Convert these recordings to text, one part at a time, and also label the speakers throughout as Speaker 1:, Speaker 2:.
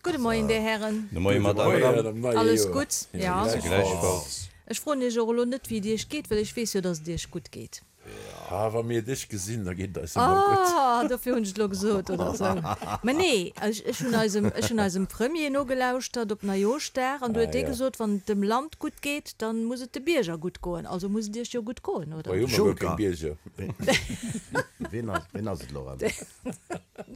Speaker 1: Gudde Moien, Dir Hären.
Speaker 2: De Moie, Madame.
Speaker 1: Alles gutt?
Speaker 2: Ja. Gläichfalls.
Speaker 1: Ech froen Iech och elo net, wéi et Iech geet, well ech weess jo, dass et Iech gutt geet.
Speaker 3: Ah, wa mir dech gesinn, da geet et eis ëmmer gutt.
Speaker 1: Ah, dofir hunn ech et elo gesot, oder esou. Mä nee, ech, ech hunn eisem, ech hunn eisem Premier nogelauschtert op Neijooschdag an du huet dee gesot, wann et dem Land gutt geet, da muss et de Bierger gutt goen. Also muss et Iech jo gutt goen, oder?
Speaker 3: Hei hu mer guer keng Bierger.
Speaker 4: Wien ass, wien ass et elo erëm?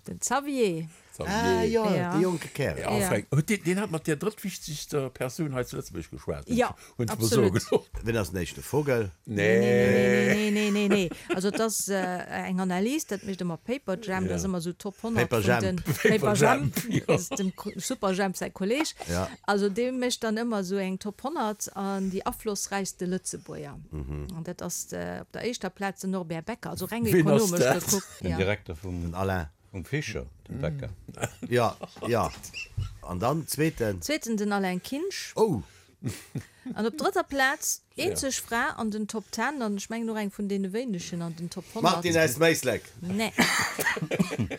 Speaker 1: Den Xavier.
Speaker 4: Ah jo, dee jonke Kärel.
Speaker 3: Ja, enfin, huet deen, deen hat mat där drëttwichtegster Persoun hei zu Lëtzebuerg geschwat,
Speaker 1: Ja,
Speaker 3: hunn ech mer soe
Speaker 1: absolut.
Speaker 3: gelooss.
Speaker 4: Wien ass den éischte Vogel?
Speaker 1: Nee, nee, nee, nee, nee, nee. Also et ass eng Analys, dat mécht ëmmer Paperjam, dat ass ëmmer esou Top 100
Speaker 4: Paper
Speaker 1: vun
Speaker 4: Jemp.
Speaker 1: den Paper Jemp,
Speaker 3: ja.
Speaker 1: dat ass dem Superjhemp säi Kolleg.
Speaker 4: Ja.
Speaker 1: Also dee mécht dann ëmmer esou eng Top 100 an déi aflossräichste Lëtzebuerger. An dat ass op der éischter Plaz den Norbert Becker, also reng
Speaker 3: Wien ass
Speaker 1: ekonomesch
Speaker 3: dat?
Speaker 1: gekuckt.
Speaker 2: Den
Speaker 1: Ja.
Speaker 2: Direkter vum.
Speaker 4: Den Alain.
Speaker 2: Um Fischer, dem Bäcker.
Speaker 4: Jo, jo. An dann zweeten?
Speaker 1: Zweeten den Alain Kinsch.
Speaker 4: Oh!
Speaker 1: An op drëtter Plaz, eenzeg Fra an den Top Ten, an ech mengen och eng vun deene wéinegen an den Top 100.
Speaker 4: Martine aus Méislek.
Speaker 1: Nee.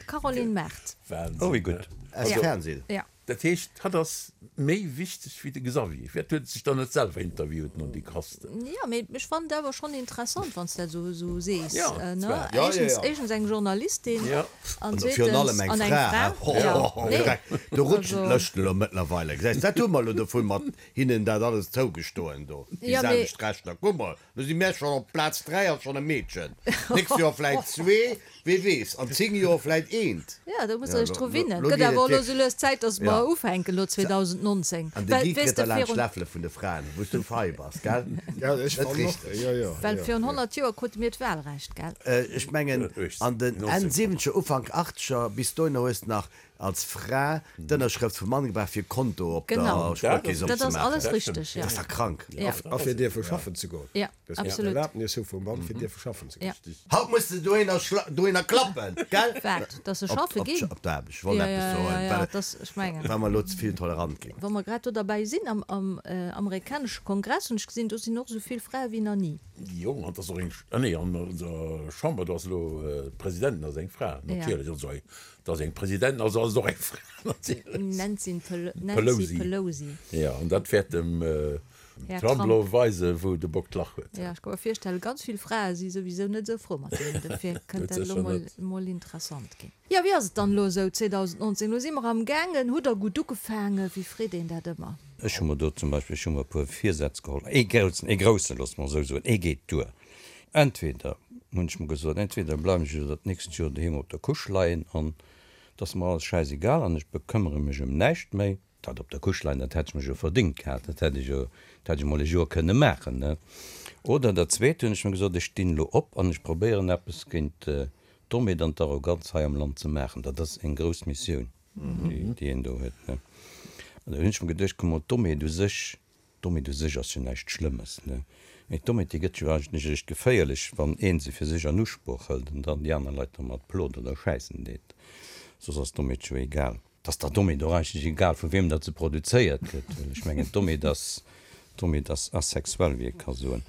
Speaker 1: D'Caroline Mart.
Speaker 3: Wahnsinn.
Speaker 2: Oh, wéi gutt.
Speaker 4: Aus dem Fernsehen.
Speaker 1: Ja.
Speaker 3: Dat heescht, hatt ass méi wichteg wéi de Xavier. Firwat huet e sech dann net selwer interviewt, non déi Krasten?
Speaker 1: Jo, mee ech fannen et awer schonn interessant, wann s de dat esou sees,
Speaker 3: Jo,
Speaker 1: ne?
Speaker 3: zwar.
Speaker 4: Jo, jo,
Speaker 1: Éischtens,
Speaker 4: jo.
Speaker 1: éischtens eng Journalistin
Speaker 3: Jo.
Speaker 1: an
Speaker 4: An virun allem
Speaker 1: zweetens
Speaker 4: eng
Speaker 1: an eng
Speaker 4: Fra,
Speaker 1: Fra.
Speaker 4: he? Ho,
Speaker 1: Jo,
Speaker 4: ho, ho,
Speaker 1: nee.
Speaker 4: Dreck, do rutschen
Speaker 1: Also.
Speaker 4: d'Lëschten elo mëttlerweile, gesäis, dat hu mer elo dovun, mat hinnen dat alles zougestoen do, déi
Speaker 1: Jo, mee.
Speaker 4: selwecht Rechter. Kuck mol, lo si mär schonn op Plaz 3 ass schonn e Meedchen, d'nächst Joer vläit zwee, Wee weess, an 10 Joer vläit eent.
Speaker 1: Jo, do muss
Speaker 4: Ja,
Speaker 1: der iech
Speaker 4: lo,
Speaker 1: dru
Speaker 4: lo,
Speaker 1: winnen.
Speaker 4: lo
Speaker 1: Gëtt
Speaker 4: geet
Speaker 1: awer
Speaker 4: et
Speaker 1: och elo sou
Speaker 4: wierklech.
Speaker 1: lues Zäit, dass
Speaker 4: Ja.
Speaker 1: mer ufänken elo 2019.
Speaker 4: An de
Speaker 1: Well,
Speaker 4: Guy
Speaker 1: weess
Speaker 4: kritt
Speaker 1: de,
Speaker 4: da laanscht
Speaker 1: virun.
Speaker 4: d'Läffele vun de Fraen, wou s du fei bass, gell?
Speaker 5: Ja, ech
Speaker 4: Net
Speaker 5: fannen och.
Speaker 4: richteg.
Speaker 5: Jo, jo,
Speaker 1: Well
Speaker 5: jo,
Speaker 1: virun
Speaker 5: jo.
Speaker 1: 100 Joer krute mir d'Wahlrecht, gell?
Speaker 4: Ech mengen, an den Enn siwwenzeger, Ufank achtzeger, bis dohinner hues de nach als Fra d'Ënnerschrëft vum Mann gebraucht, fir e Konto op der
Speaker 1: Genau.
Speaker 4: Spuerkeess
Speaker 1: Dat ass
Speaker 4: opzemaachen.
Speaker 1: alles richteg, ja.
Speaker 4: Dat ass dach krank.
Speaker 1: Ja.
Speaker 5: A fir dierfe schaffen ze goen.
Speaker 1: Ja.
Speaker 5: Dat ass
Speaker 1: Absolut.
Speaker 5: d'Erlaabnis hu vum Mann, fir dierfe schaffen ze goen.
Speaker 1: Ja.
Speaker 4: Haut muss de dohinner schla dohinner klappen, gell?
Speaker 1: Wat? Dass se
Speaker 4: Op,
Speaker 1: schaffe
Speaker 4: op,
Speaker 1: ginn?
Speaker 4: op d'Aarbecht. Ech wollt
Speaker 1: Ja,
Speaker 4: eppes
Speaker 1: ja,
Speaker 4: soen,
Speaker 1: ja, ja,
Speaker 4: well,
Speaker 1: dass, ech mengen.
Speaker 4: well mer elo ze vill tolerant ginn.
Speaker 1: Wa mer grad do derbäi sinn, am, am amerikanesche Kongress hunn ech gesinn, do sinn och esou vill Frae wéi nach ni.
Speaker 3: Jo, an 't ass och eng, ah nee, an der Chamber, do ass elo d'Presidentin ass eng Fra, natierlech. Also, et ass eng Presidentin, also ass et och eng Fra, natierlech.
Speaker 1: Nancy Pel-, Nancy
Speaker 3: Pelosi.
Speaker 1: Pelosi.
Speaker 3: Jo, an dat wäert dem
Speaker 1: Här
Speaker 3: Trump
Speaker 1: Trump.
Speaker 3: elo weisen, wou de Bock d'Lach huet.
Speaker 1: Jo, ech ka mer virstellen, ganz vill Frae si souwisou net esou frou mat deem, dofir kënnt dat elo mol, mol interessant ginn. Jo, wéi ass et dann elo esou 2019? Elo si mer am gaangen. Hutt der gutt ugefaangen? Wéi freet een dat ëmmer?
Speaker 2: Ech hu mer do zum Beispill, ech hu mer e puer Virsätz geholl, ee groussen, ee groussen, loosse mer esou soen, ee geet duer. Entweder, hunn ech mer gesot, entweder bleiwen ech elo dat nächst Joer doheem op der Couche leien an et ass mer alles schäisegal an ech bekëmmere mech ëm näischt méi, Dat op der Couche leien, dat hätt ech mech jo verdingt gehat, dat hätt ech jo, dat hätt ech emol e Joer kënne maachen, ne? Oder dat Zweet, hunn ech mer gesot, ech stinn elo op an ech probéieren eppes géint d'Dommheet an d'Arroganz hei am Land ze maachen. Dat ass eng grouss Missioun, déi een do huet, ne? An da hunn ech mer geduecht, komm mol, d'Dommheet u sech, d'Dommheet u sech ass jo näischt Schlëmmes, ne? Mee d'Dommheet, déi gëtt jo eigentlech eréischt geféierlech, wann ee se fir sech an Usproch hëlt an dann déi aner Leit domat plot oder schäissen deet. Soss ass d'Dommheet jo egal. 't ass der Dommheet och eigentlech egal, vu wiem datt se produzéiert gëtt, well ech mengen, d'Dommheet ass, d'Dommheet ass asexuell, wéi ee ka soen.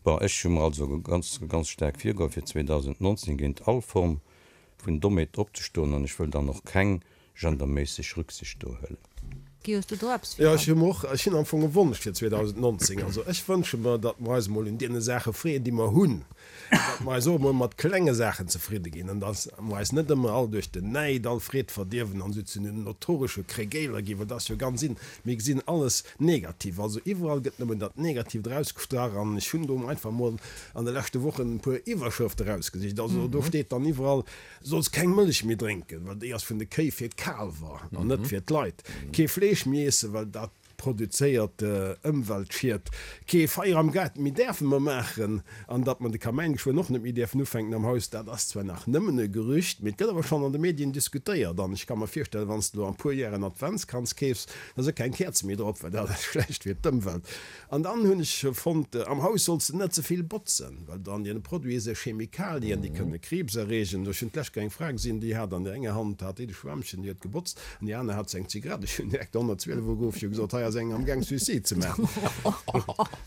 Speaker 2: Bon, ech hu mer also ganz, ganz staark virgeholl, fir 2019 géint all Form vun Dommheet opzestoen, an ech wëll dann och keng genderméisseg Rücksicht do huelen.
Speaker 1: Guy, hues du do eppes
Speaker 5: Jo, ech
Speaker 1: virun?
Speaker 5: hu mer och, ech hunn am Fong e Wonsch fir 2019. Also ech wënsche mer, datt mer eis emol un deene Saache freeën, déi mer hunn. Datt mer eis och emol mat klenge Saachen zefridde ginn an datt mer eis net ëmmer all duerch den Näid all Freed verdierwen an esou zu den notoresche Kregéiler ginn, well dat ass jo ganz in, mir gesinn alles negativ. Also iwwerall gëtt nëmmen dat Negatiivt erausgestrach an ech hunn do einfach emol an de leschte Wochen e puer Iwwerschrëfte erausgesicht. Also do steet dann iwwerall, Solls keng Mëllech méi drénken, well déi ass vun de Kéi fir d'Kaalwer an net fir d'Leit. Kee Fleesch méi iessen, well dat produzéiert Ëmweltschied. Kee Feier am Gaart méi däerfe mer maachen an datt mer de Kamäin geschwënn och net méi däerfen ufänken am Haus, dat ass zwar nach nëmmen e Gerücht, mee et gëtt awer schonn an de Medien diskutéiert an ech ka mer virstellen, wann s de elo an puer Jär en Adventskranz keefs, da si keng Käerze méi drop, well dat ass schlecht fir d'Ëmwelt. An dann hunn ech fonnt, am Haus solls de net ze vill botzen, well an deene Produite si Chemikalien, déi kënne Kriibs erreegen. Ech hunn d'lescht Kéier eng Fra gesinn, déi hat an der enger Hand hat déi de Schwämmchen, déi huet gebotzt, an déi aner hat se eng Zigarett. Ech hunn direkt de 112 ugeruff, ech hu gesot, hei ass eng amgaang Suicide ze maachen.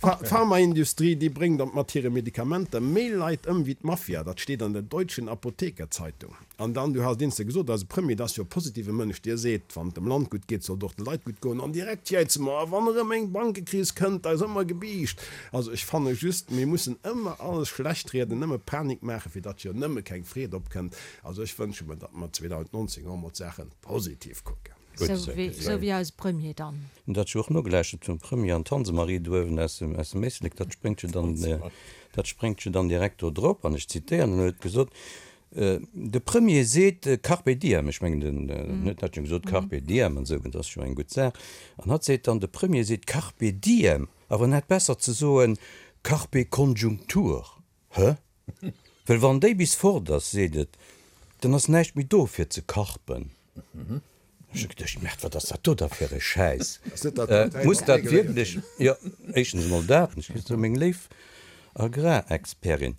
Speaker 5: D'Pharmaindustrie, déi bréngt mat hire Medikamenter méi Leit ëm wéi d'Mafia. Dat steet an der Deutschen Apotheker-Zeitung. An dann, du has dienste gesot, eise Premier, dat ass jo e positive Mënsch, dee seet, wann et dem Land gutt geet, soll et och de Leit gutt goen. An direkt jäize mer, a wann erëm eng Bankekris kënnt, da ass ëmmer gebiischt. Also ech fanne just, mir mussen ëmmer alles schlecht rieden, nëmme Panik maachen, fir datt jo nëmme keng Freed opkënnt. Also ech wënsche mer, datt mer 2019 och emol d'Saache positiv kucken.
Speaker 1: Sou wéi eise Premier dann.
Speaker 2: Hunn dat jo och nogelauschtert vum Premier an d'Hansemarie do uewen aus dem Éislek, dat spréngt jo dann, dat spréngt jo dann direkt do drop. An ech zitéieren, en huet gesot, De Premier seet Carpe diem, ech mengen den huet dat jo gesot, Carpe diem an esou, dat ass jo eng gutt Saach. An hatt seet dann, de Premier seet Carpe diem, awer en hätt besser ze soen Carpe Konjunktur. Hë? Well wann déi bis fort ass, seet et, dann ass näischt méi do fir ze karpen. Ech hu geduecht, Merde, wat ass dat do da fir e Schäiss? Muss dat wierklech, jo, éischtens emol dat, an ech gesot, sou meng léif Agrarexpertin,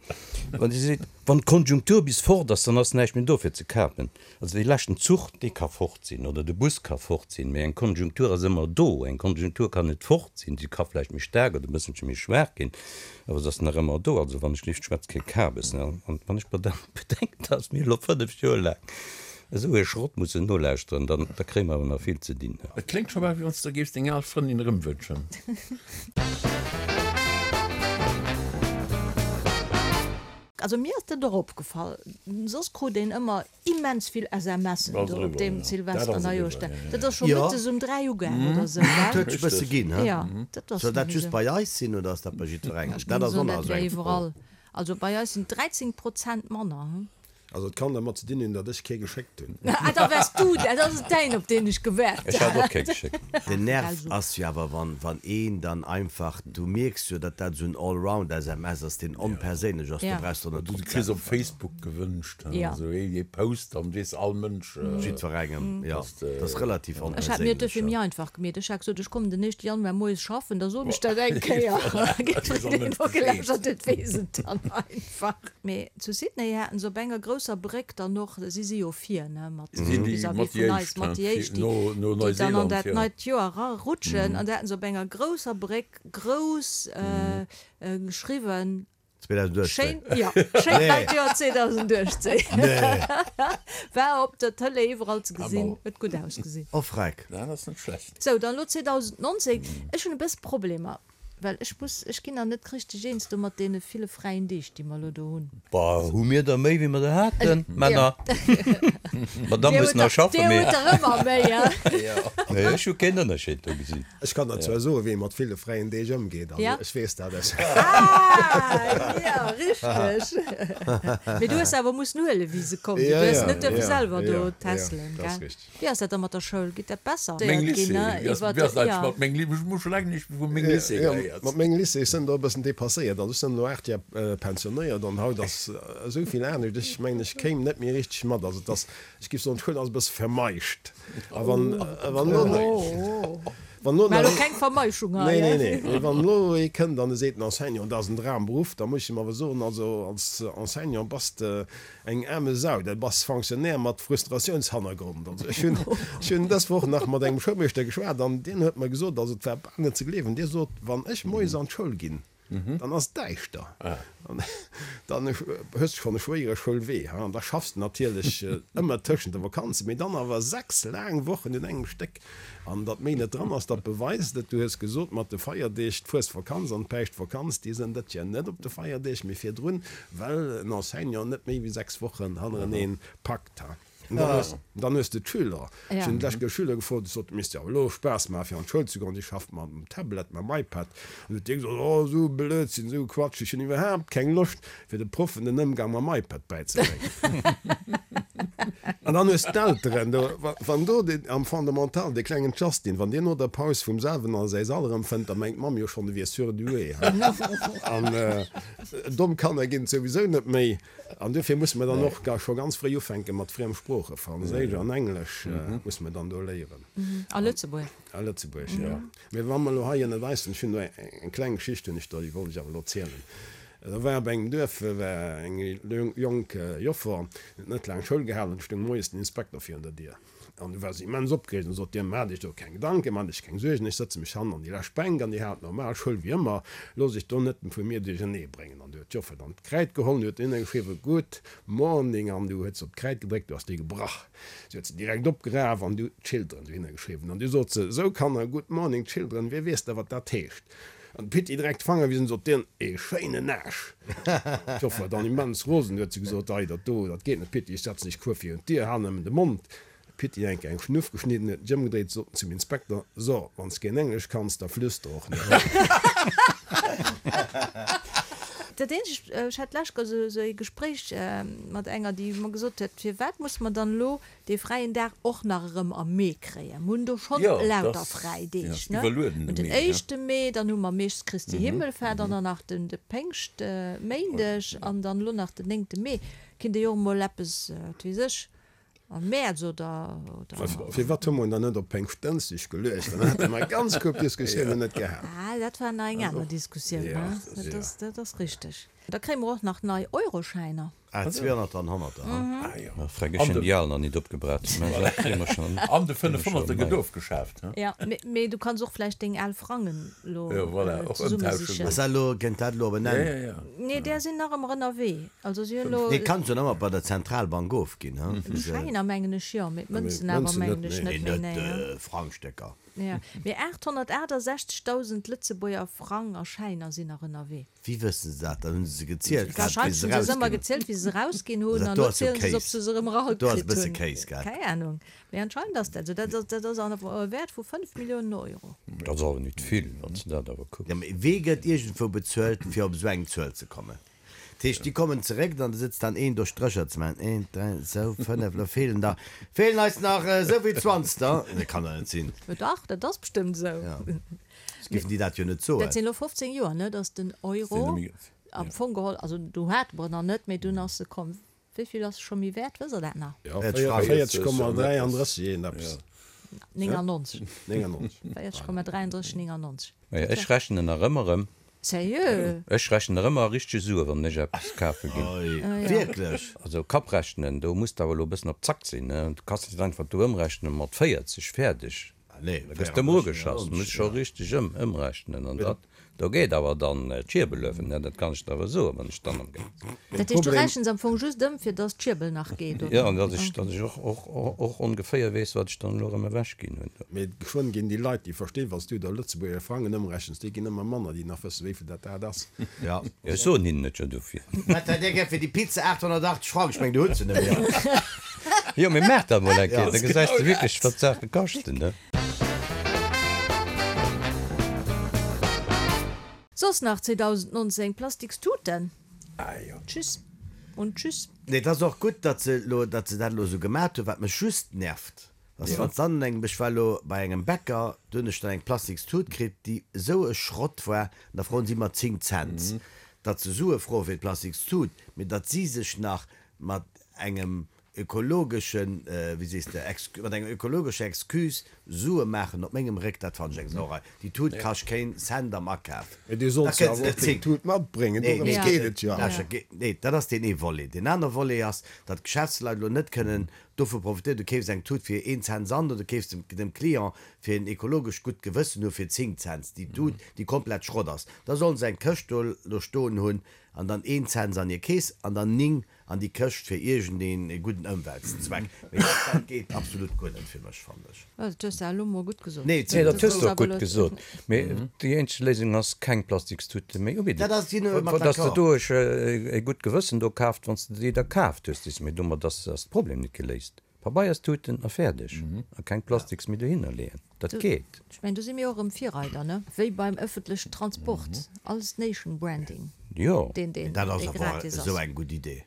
Speaker 2: wann si seet, wann d'Konjunktur bis fort ass, dann ass näischt méi do fir ze kapen. Also dee leschten Zuch, dee ka fort sinn, oder de Bus ka fort sinn, mee eng Konjunktur ass ëmmer do. Eng Konjunktur kann net fort sinn, si ka vläicht méi staark oder e bësselche méi schwaach ginn, awer se ass nach ëmmer do. Also wann ech lift schwätz kee Kabes, ne? An wann ech mer dann bedenken, dass mir elo 5 Joer laang Esou ee Schrott mussen nolauschteren, dann da kréie mer awer nach vill ze dinn.
Speaker 3: Et kléngt scho bal wéi wann s de der géifs deng al Frëndin erëmwënschen.
Speaker 1: Also mir ass dat och opgefall, soss krut een ëmmer immens vill SMSen do op deem Silvester Neijoerschdag. Dat ass scho mëttes um 3 ugaang oder esou, gell?
Speaker 4: Dat huet sech e bësse ginn, he?
Speaker 1: Jo, dat ass
Speaker 4: Soll dat just bei eis sinn oder ass dat bei jiddwerengem?
Speaker 1: Ech
Speaker 4: Dat
Speaker 1: géing
Speaker 4: ass och
Speaker 1: soen,
Speaker 4: nach
Speaker 1: dat
Speaker 4: esou
Speaker 1: wär
Speaker 4: eng Fro.
Speaker 1: iwwerall. Also bei eis sinn 13 Prozent manner, he?
Speaker 5: Also et kann dermat ze dinn hunn, datt ech kee geschéckt hunn.
Speaker 1: Ah, da wars du dat, ass et däin, op deen ech gewaart
Speaker 2: Ech hat och kee geschéckt.
Speaker 4: Den Nerv ass jo awer, wann wann een dann einfach, du mierks jo, datt dat esou en Allround SMS ass, deen onperséinlech ass, do brauchs de och net
Speaker 3: Du
Speaker 4: drop ze
Speaker 3: kriss op
Speaker 4: äntweren.
Speaker 3: Facebook gewënscht, esou ee Post, dann weess all Mënsch.
Speaker 4: Jiddwerengem, jo. Dat ass relativ
Speaker 1: Ech hat mir et duerfir
Speaker 4: onperséinlech,
Speaker 1: méi
Speaker 4: jo.
Speaker 1: einfach gemeet. Ech hat gesot, ech kommen den éischte Januar moies schaffen, da soen ech dat eng Kéier. Jiddwereen, deen nogelauschtert huet, weess et dann einfach. Mee zu Sydney haten se op enger grousser Bréck dann och, si si jo vir, ne, mat vis-à-vis vun eis, mat déi éischt, déi dann an dat neit Joer erarutschen, an da haten se op enger grousser Bréck grouss geschriwwen,
Speaker 4: 2018.
Speaker 1: Schéin, jo, schéint neit Joer 2018. War op der Tëlee iwwerall ze gesinn, huet gutt ausgesinn.
Speaker 4: Oh freck.
Speaker 3: Dat ass net schlecht.
Speaker 1: Sou, dann elo 2019. Ech hunn e bësse Problemer. Well ech muss, ech ginn nach net richteg eens do mat deene ville fräien Deeg, déi mer elo do hunn.
Speaker 2: Bah, hu mir der méi, wéi mer der haten, Männer? D'Madame muss nach schaffen,
Speaker 1: Dir
Speaker 2: mee.
Speaker 1: hutt der ëmmer méi, hein?
Speaker 2: Nee, ech hu keen Ënnerscheed do gesinn.
Speaker 5: Ech kann der zwar soen, wéi ee mat ville fräien Deeg ëmgeet, also ech weess dat aus.
Speaker 1: Ah, jo, richteg. Mee du hues se awer mussen huelen, wéi se komm sinn. Du hues net duerfe selwer do tässelen, gell? Wéi ass dat da mat der Schoul? Geet dat besser?
Speaker 3: Meng Lycée, wéi ass dat eigentlech mat meng Lycée? Ech hu scho laang näischt méi vu meng Lycée gehéiert.
Speaker 5: Mat mengem Lycée, ech sinn do e bëssen dépasséiert. Also ech sinn elo 8 Jar pensionéiert an haut ass esou vill anescht. Ech mengen, ech kéim net méi richteg mat. Also et ass, ech géif soen, d'Schoul ass e bësse vermeischt. A wann, wann elo, wann elo
Speaker 1: Mä elo keng Vermeischung hei,
Speaker 5: Nee, nee, nee. Mee wann elo ee kënnt an e seet, den Enseignant, dat ass en Dramberuff, da muss ech him awer soen, also als Enseignant bass de Eng aarme Sau, dat bass Fonctionnaire mat Frustratiounshannergrond. Also ech hunn, ech hunn dës Woch nach mat engem Schoulmeeschter geschwat an deen huet mer gesot, also et war bal net ze gleewen, dee sot, wann ech moies an d'Schoul ginn, dann ass et däischter an dann hues de schonn e schwéiere Schoulwee, ha, an da schaffs de natierlech ëmmer tëschent de Vakanzen, mee dann awer 6 laang Wochen un engem Stéck. An datt méi net dran ass, dat beweist et. Du hues gesot, mat de Feierdeeg, d'Fuesvakanz an d'Päischtvakanz, déi sënn dat jo net op de Feierdeeg, mee virdrun, well en Enseignant net méi wéi 6 Wochen hannereneen packt. An dann hues de d'Schüler. Ech hunn d'lescht Kéier Schüler gefrot, ech sot, et misst jo awer elo Spaass maachen, fir an d'Schoul ze goen, déi schafft mam Tablet, mam iPad. An huet dee gesot, oh, esou Blödsinn, esou Quatsch, ech hunn iwwerhaapt keng Loscht, fir de Proffen den Ëmgang mam iPad bäizebréngen. An dann hues d'Elteren do, wann do deen am Fondamental, dee klengen Justin, wann deen no der Paus vum selwen a säi Sall erëmfënnt, da mengt d'Mamm jo schonn, e wier surdoué. An domm Kanner ginn et souwisou net méi. An duerfir musse mer dann och scho ganz fréi ufänke mat Friemsproochen, Franséisch an Englesch musse mer dann do léieren.
Speaker 1: A Lëtzebuerg.
Speaker 5: A Lëtzebuerg, jo. Mee wa mer elo hei ënnert eis sinn, ech hunn do eng kleng Geschicht hunn ech do, déi wollt ech awer elo zielen. Da war op engem Duerf war eng jonk Joffer, déi huet net laang Schoul gehalen, an du stoung moies den Inspekter virun der Dier. An du war se immens opgereegt an sot, Dir maacht Iech do keng Gedanken, maacht Iech keng Suergen, ech sëtze mech hannen an déi lescht Bänk an Dir haalt normal Schoul wéi ëmmer, loosst Iech do net vu mir duerchernee bréngen. An du huet d'Joffer dann d'Kräid geholl an huet dohinner geschriwwen, Good morning an du huet se op d'Kräid gedréckt, du ass déi gebrach. Si huet se direkt opgeraf an du Children dohinner geschriwwen. An du sot se, Sou Kanner, Good morning children, wie weess da wat dat heescht? An de Pitti direkt d'Fanger wisen, sot dien, Ee schéinen Aasch! D'Joffer war dann immens rosen, huet se gesot, Ei, dat do, dat geet net, Pitti, ech setzen dech kuer virun d'Dier, hal nëmmen de Mond. De Pitti enk eng Schnuff geschnidden, huet sech ëmgedréit, sot en zum Inspekter, So, wann s keen Englesch kanns, da flüster och net.
Speaker 1: Dat eenzegt, ech hat d'lescht Kéier esou ee Gespréich mat enger, déi mer gesot huet, Firwat musse mer dann elo dee fräien Dag och nach erëm am Mee kréien. Mer hunn do schonn lauter fräi Deeg, ne? Mer hunn den éischte Mee, dann hu mer meeschtens Christi Himmelfahrt an dann nach den de Péngschtméindeg an dann elo nach den néngte Mee. Kinnt ee jo och emol eppes, wat weess ech, am Mäerz oder, oder.
Speaker 5: Firwat hu mer en dann net op Péngschtdënschdeg geluecht? Dann hätte mer ganz gutt Diskussiounen net gehat.
Speaker 1: Ah, dat war nach eng aner Diskussioun, ne? Dat ass, dat ass richteg. Da kréie mer och nach nei Euroschäiner.
Speaker 4: Ah, 200 an Honnerter,
Speaker 2: ha? Ah jo. Ma freck, ech hunn déi al nach nit opgebrat. Mä dat kréie mer
Speaker 3: schonn. An de 500er gëtt ofgeschaaft,
Speaker 1: ha? Ja, mee du kanns och vläicht deng al Frangen elo zesummesichen.
Speaker 4: Ass dat elo, kënnt dat elo op en Enn?
Speaker 1: Nee, där sinn nach ëmmer ënnerwee. Also si hunn elo.
Speaker 4: Nee, kanns jo nach ëmmer bei der Zentralbank ofginn, ha?
Speaker 1: Schäiner mengen ech jo, mee d'Mënzen awer mengen ech net méi, nee.
Speaker 4: Net Frangstécker.
Speaker 1: Ja, mee 868.000 Lëtzebuerger Frang a Schäiner sinn nach ënnerwee.
Speaker 4: Wéi wëssen se dat? Dann hunn se se gezielt gehat, wéi
Speaker 1: se erausginn. Wahrscheinlech hunn se se ëmmer gezielt, wéi se se erausginn hunn, an elo zielen se se, ob se se erëm
Speaker 4: eragekritt hunn. Do ass e bësse Kéis, gell?
Speaker 1: Keng Ahnung, mee anscheinend ass dat esou. Dat ass, dat ass an e Wäert vu 5 Milliounen Euro.
Speaker 2: Dat ass awer nit vill, wann s de dat awer kucks.
Speaker 4: Jo, mee wee gëtt iergendwou bezuelt, fir op esou eng Zuel ze kommen? Dat heescht, déi kommen zeréck, dann sëtzt dann een do Strécher ze maachen, eent, dräi, sou, fënnef, elo feelen der, feelen eis nach esou vill Zwanzter. Dat kann der net sinn.
Speaker 1: Dach, dat ass bestëmmt esou.
Speaker 4: Soss géifen déi dat jo net soen.
Speaker 1: Dat sinn elo 15 Joer, ne, datt den Euro am Fong geholl, also do hate mer en nach net, mee dunn ass e komm. Wéi vill ass e scho méi wäert, wësst Der dat nach?
Speaker 5: Jo, 40,33 een eppes.
Speaker 1: 99. 99. 40,33 99.
Speaker 2: Majo, ech rechnen nach ëmmer ëm.
Speaker 1: Sérieux?
Speaker 2: Ech rechnen nach ëmmer a richtege Sue wann ech eppes kafe ginn.
Speaker 4: Wierklech?
Speaker 2: Also Kapprechnen, do muss de awer elo e bëssen op Zack sinn, ne? Du kanns net einfach do ëmrechnen mat 40, fäerdeg. Da gëss de ëm ugeschass, muss scho richteg ëm ëmrechnen an dat do geet awer dann d'Schierbel uewen, ne, dat kann ech der awer soen, wann ech dann am Gaang
Speaker 1: sinn. Dat heescht, du rechens am Fong just ëm, fir dass d'Schierbel nach geet, oder?
Speaker 2: Jo, an dass ech, dass ech och, och, och ongeféier weess, wat ech dann elo erëm ewech ginn hunn do.
Speaker 5: Mee geschwënn ginn déi Leit, déi verstinn, wann s du der Lëtzebuerger Frangen ëmrechens, déi ginn ëmmer manner, déi nach wëssen, wéivill dat dat ass.
Speaker 2: Jo, ech soen hinnen et jo dofir.
Speaker 4: Wat hätt Dir gär fir déi Pizza? 880 Frang, ech meng, du hutt se net méi.
Speaker 2: Jo, mee maach dat mol eng Kéier, da gesäis de wierklech, wat d'Saache kaschten, ne?
Speaker 1: Soss nach 2019, Plastikstuten. Tschüss und tschüss.
Speaker 4: Nee, et ass och gutt, datt se elo, datt se dat elo esou gemat hunn. Wat mech just nervt, ass wann s dann an engem, ech war elo bei engem Bäcker, do hunn ech dann eng Plastikstut kritt, déi esou e Schrott war, an da froen si mer 10 Cents. Datt se Sue froe fir d'Plastikstut, mee datt si sech nach mat engem ökologeschen, wéi sees de, mat enger ökologescher Excuse Sue maachen op mengem Réck, dat fannen ech eng Sauerei. Déi Tut kascht keen Cent am Akaf.
Speaker 5: Mee du solls jo awer och deng Tut matbréngen, dorëms geet et jo
Speaker 4: awer. Nee, dat ass deen ee Volet. Deen aner Volet ass, datt d'Geschäftsleit elo net kënnen dovu profitéieren, du keefs eng Tut fir een Cent Sand oder du keefs dem Client fir en ekologescht gutt Gewëssen hu fir 10 Cents déi Tut, déi komplett Schrott ass. Da sollen se eng Këscht do stoen hunn an dann een Cents an hir Keess an dann 9 an déi Këscht fir iergend een gudden Ëmweltzweck. Mee dat dat geet absolut guer net fir mech, fannen ech.
Speaker 1: Dat hues de elo mol gutt gesot.
Speaker 2: Nee, Nee, dat hues de och gutt gesot. Mee déi eenzeg Léisung ass, keng Plastikstute méi ubidden.
Speaker 4: Dat ass, sinn ech
Speaker 2: mat Dass de d'accord. do e gutt Gewëssen do kaaft, wann s de déi da kaaft hues, déi s. Mee domat ass de Problem net geléist. Pabeierstuten a fäerdeg. A keng Plastiks méi dohinner leeën. Dat geet.
Speaker 1: Ech mengen, do si mir och erëm Virreider, ne? Wéi beim ëffentlechen Transport, alles Nation Branding,
Speaker 2: Jo.
Speaker 1: deen, deen,
Speaker 4: Dat ass
Speaker 1: dee
Speaker 4: awer
Speaker 1: gratis
Speaker 4: esou
Speaker 1: ass.
Speaker 4: eng gutt Idee.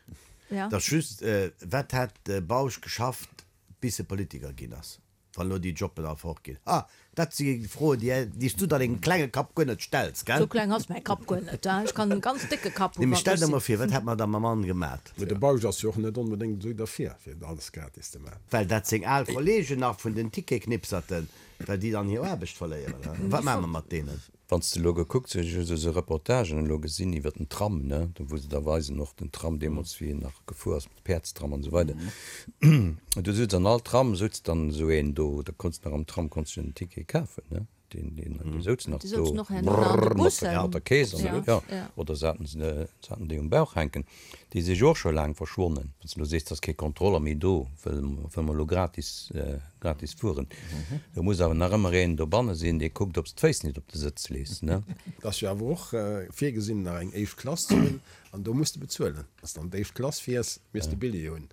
Speaker 1: Ja.
Speaker 4: Et ass just, wat hat de Bausch geschafft, bis e Politiker ginn ass? Wann elo déi Jobben all fort ginn? Ah, dat si Froen, déi, déi s du der dengem klenge Kapp guer net stells, gell?
Speaker 1: Sou kleng ass mäi Kapp guer net, hein. Ech kann en ganz décke Kapp
Speaker 4: hunn, Nee, mee stell der mol vir, wat hätt mer da mam Mann gemat?
Speaker 5: Mee de Bausch ass jo och net onbedéngt esou derfir, fir alles gratis ze maachen.
Speaker 4: Well dat seng al Kollegen nach vun den Ticketsknipserten. Well déi dann hir Aarbecht verléieren. Wat maache mer mat deenen?
Speaker 2: Wann s de elo gekuckt hues, ech hu sou Reportagen elo gesinn iwwer den Tram, ne, do wou se da weisen och den Tram deemools wéi en nach gefuer ass, de Päerdstram an esou weider, do souz an all Tram souz dann esou een do, da konns de nach am Tram konns de en Ticket kafen, ne, deen, deen, dee souz nach do, brrr, mat der, mat der Keess an, jo, oder se haten se, se haten déi um Bauch hänken. Déi si jo och scho laang verschwonnen. Wann s de elo sees, et ass kee Kontroller méi do, wëll wëll mer elo gratis, gratis fueren. Do muss awer nach ëmmer een dobanne sinn, dee kuckt, ob s d'Féiss nit op de Sëtz lees, ne?
Speaker 5: Et ass jo awer och virgesinn, nach eng éischt Klass ze hunn, an do muss de bezuelen. Wann s de an d'éischt Klass fiers, misst de Billjee hunn,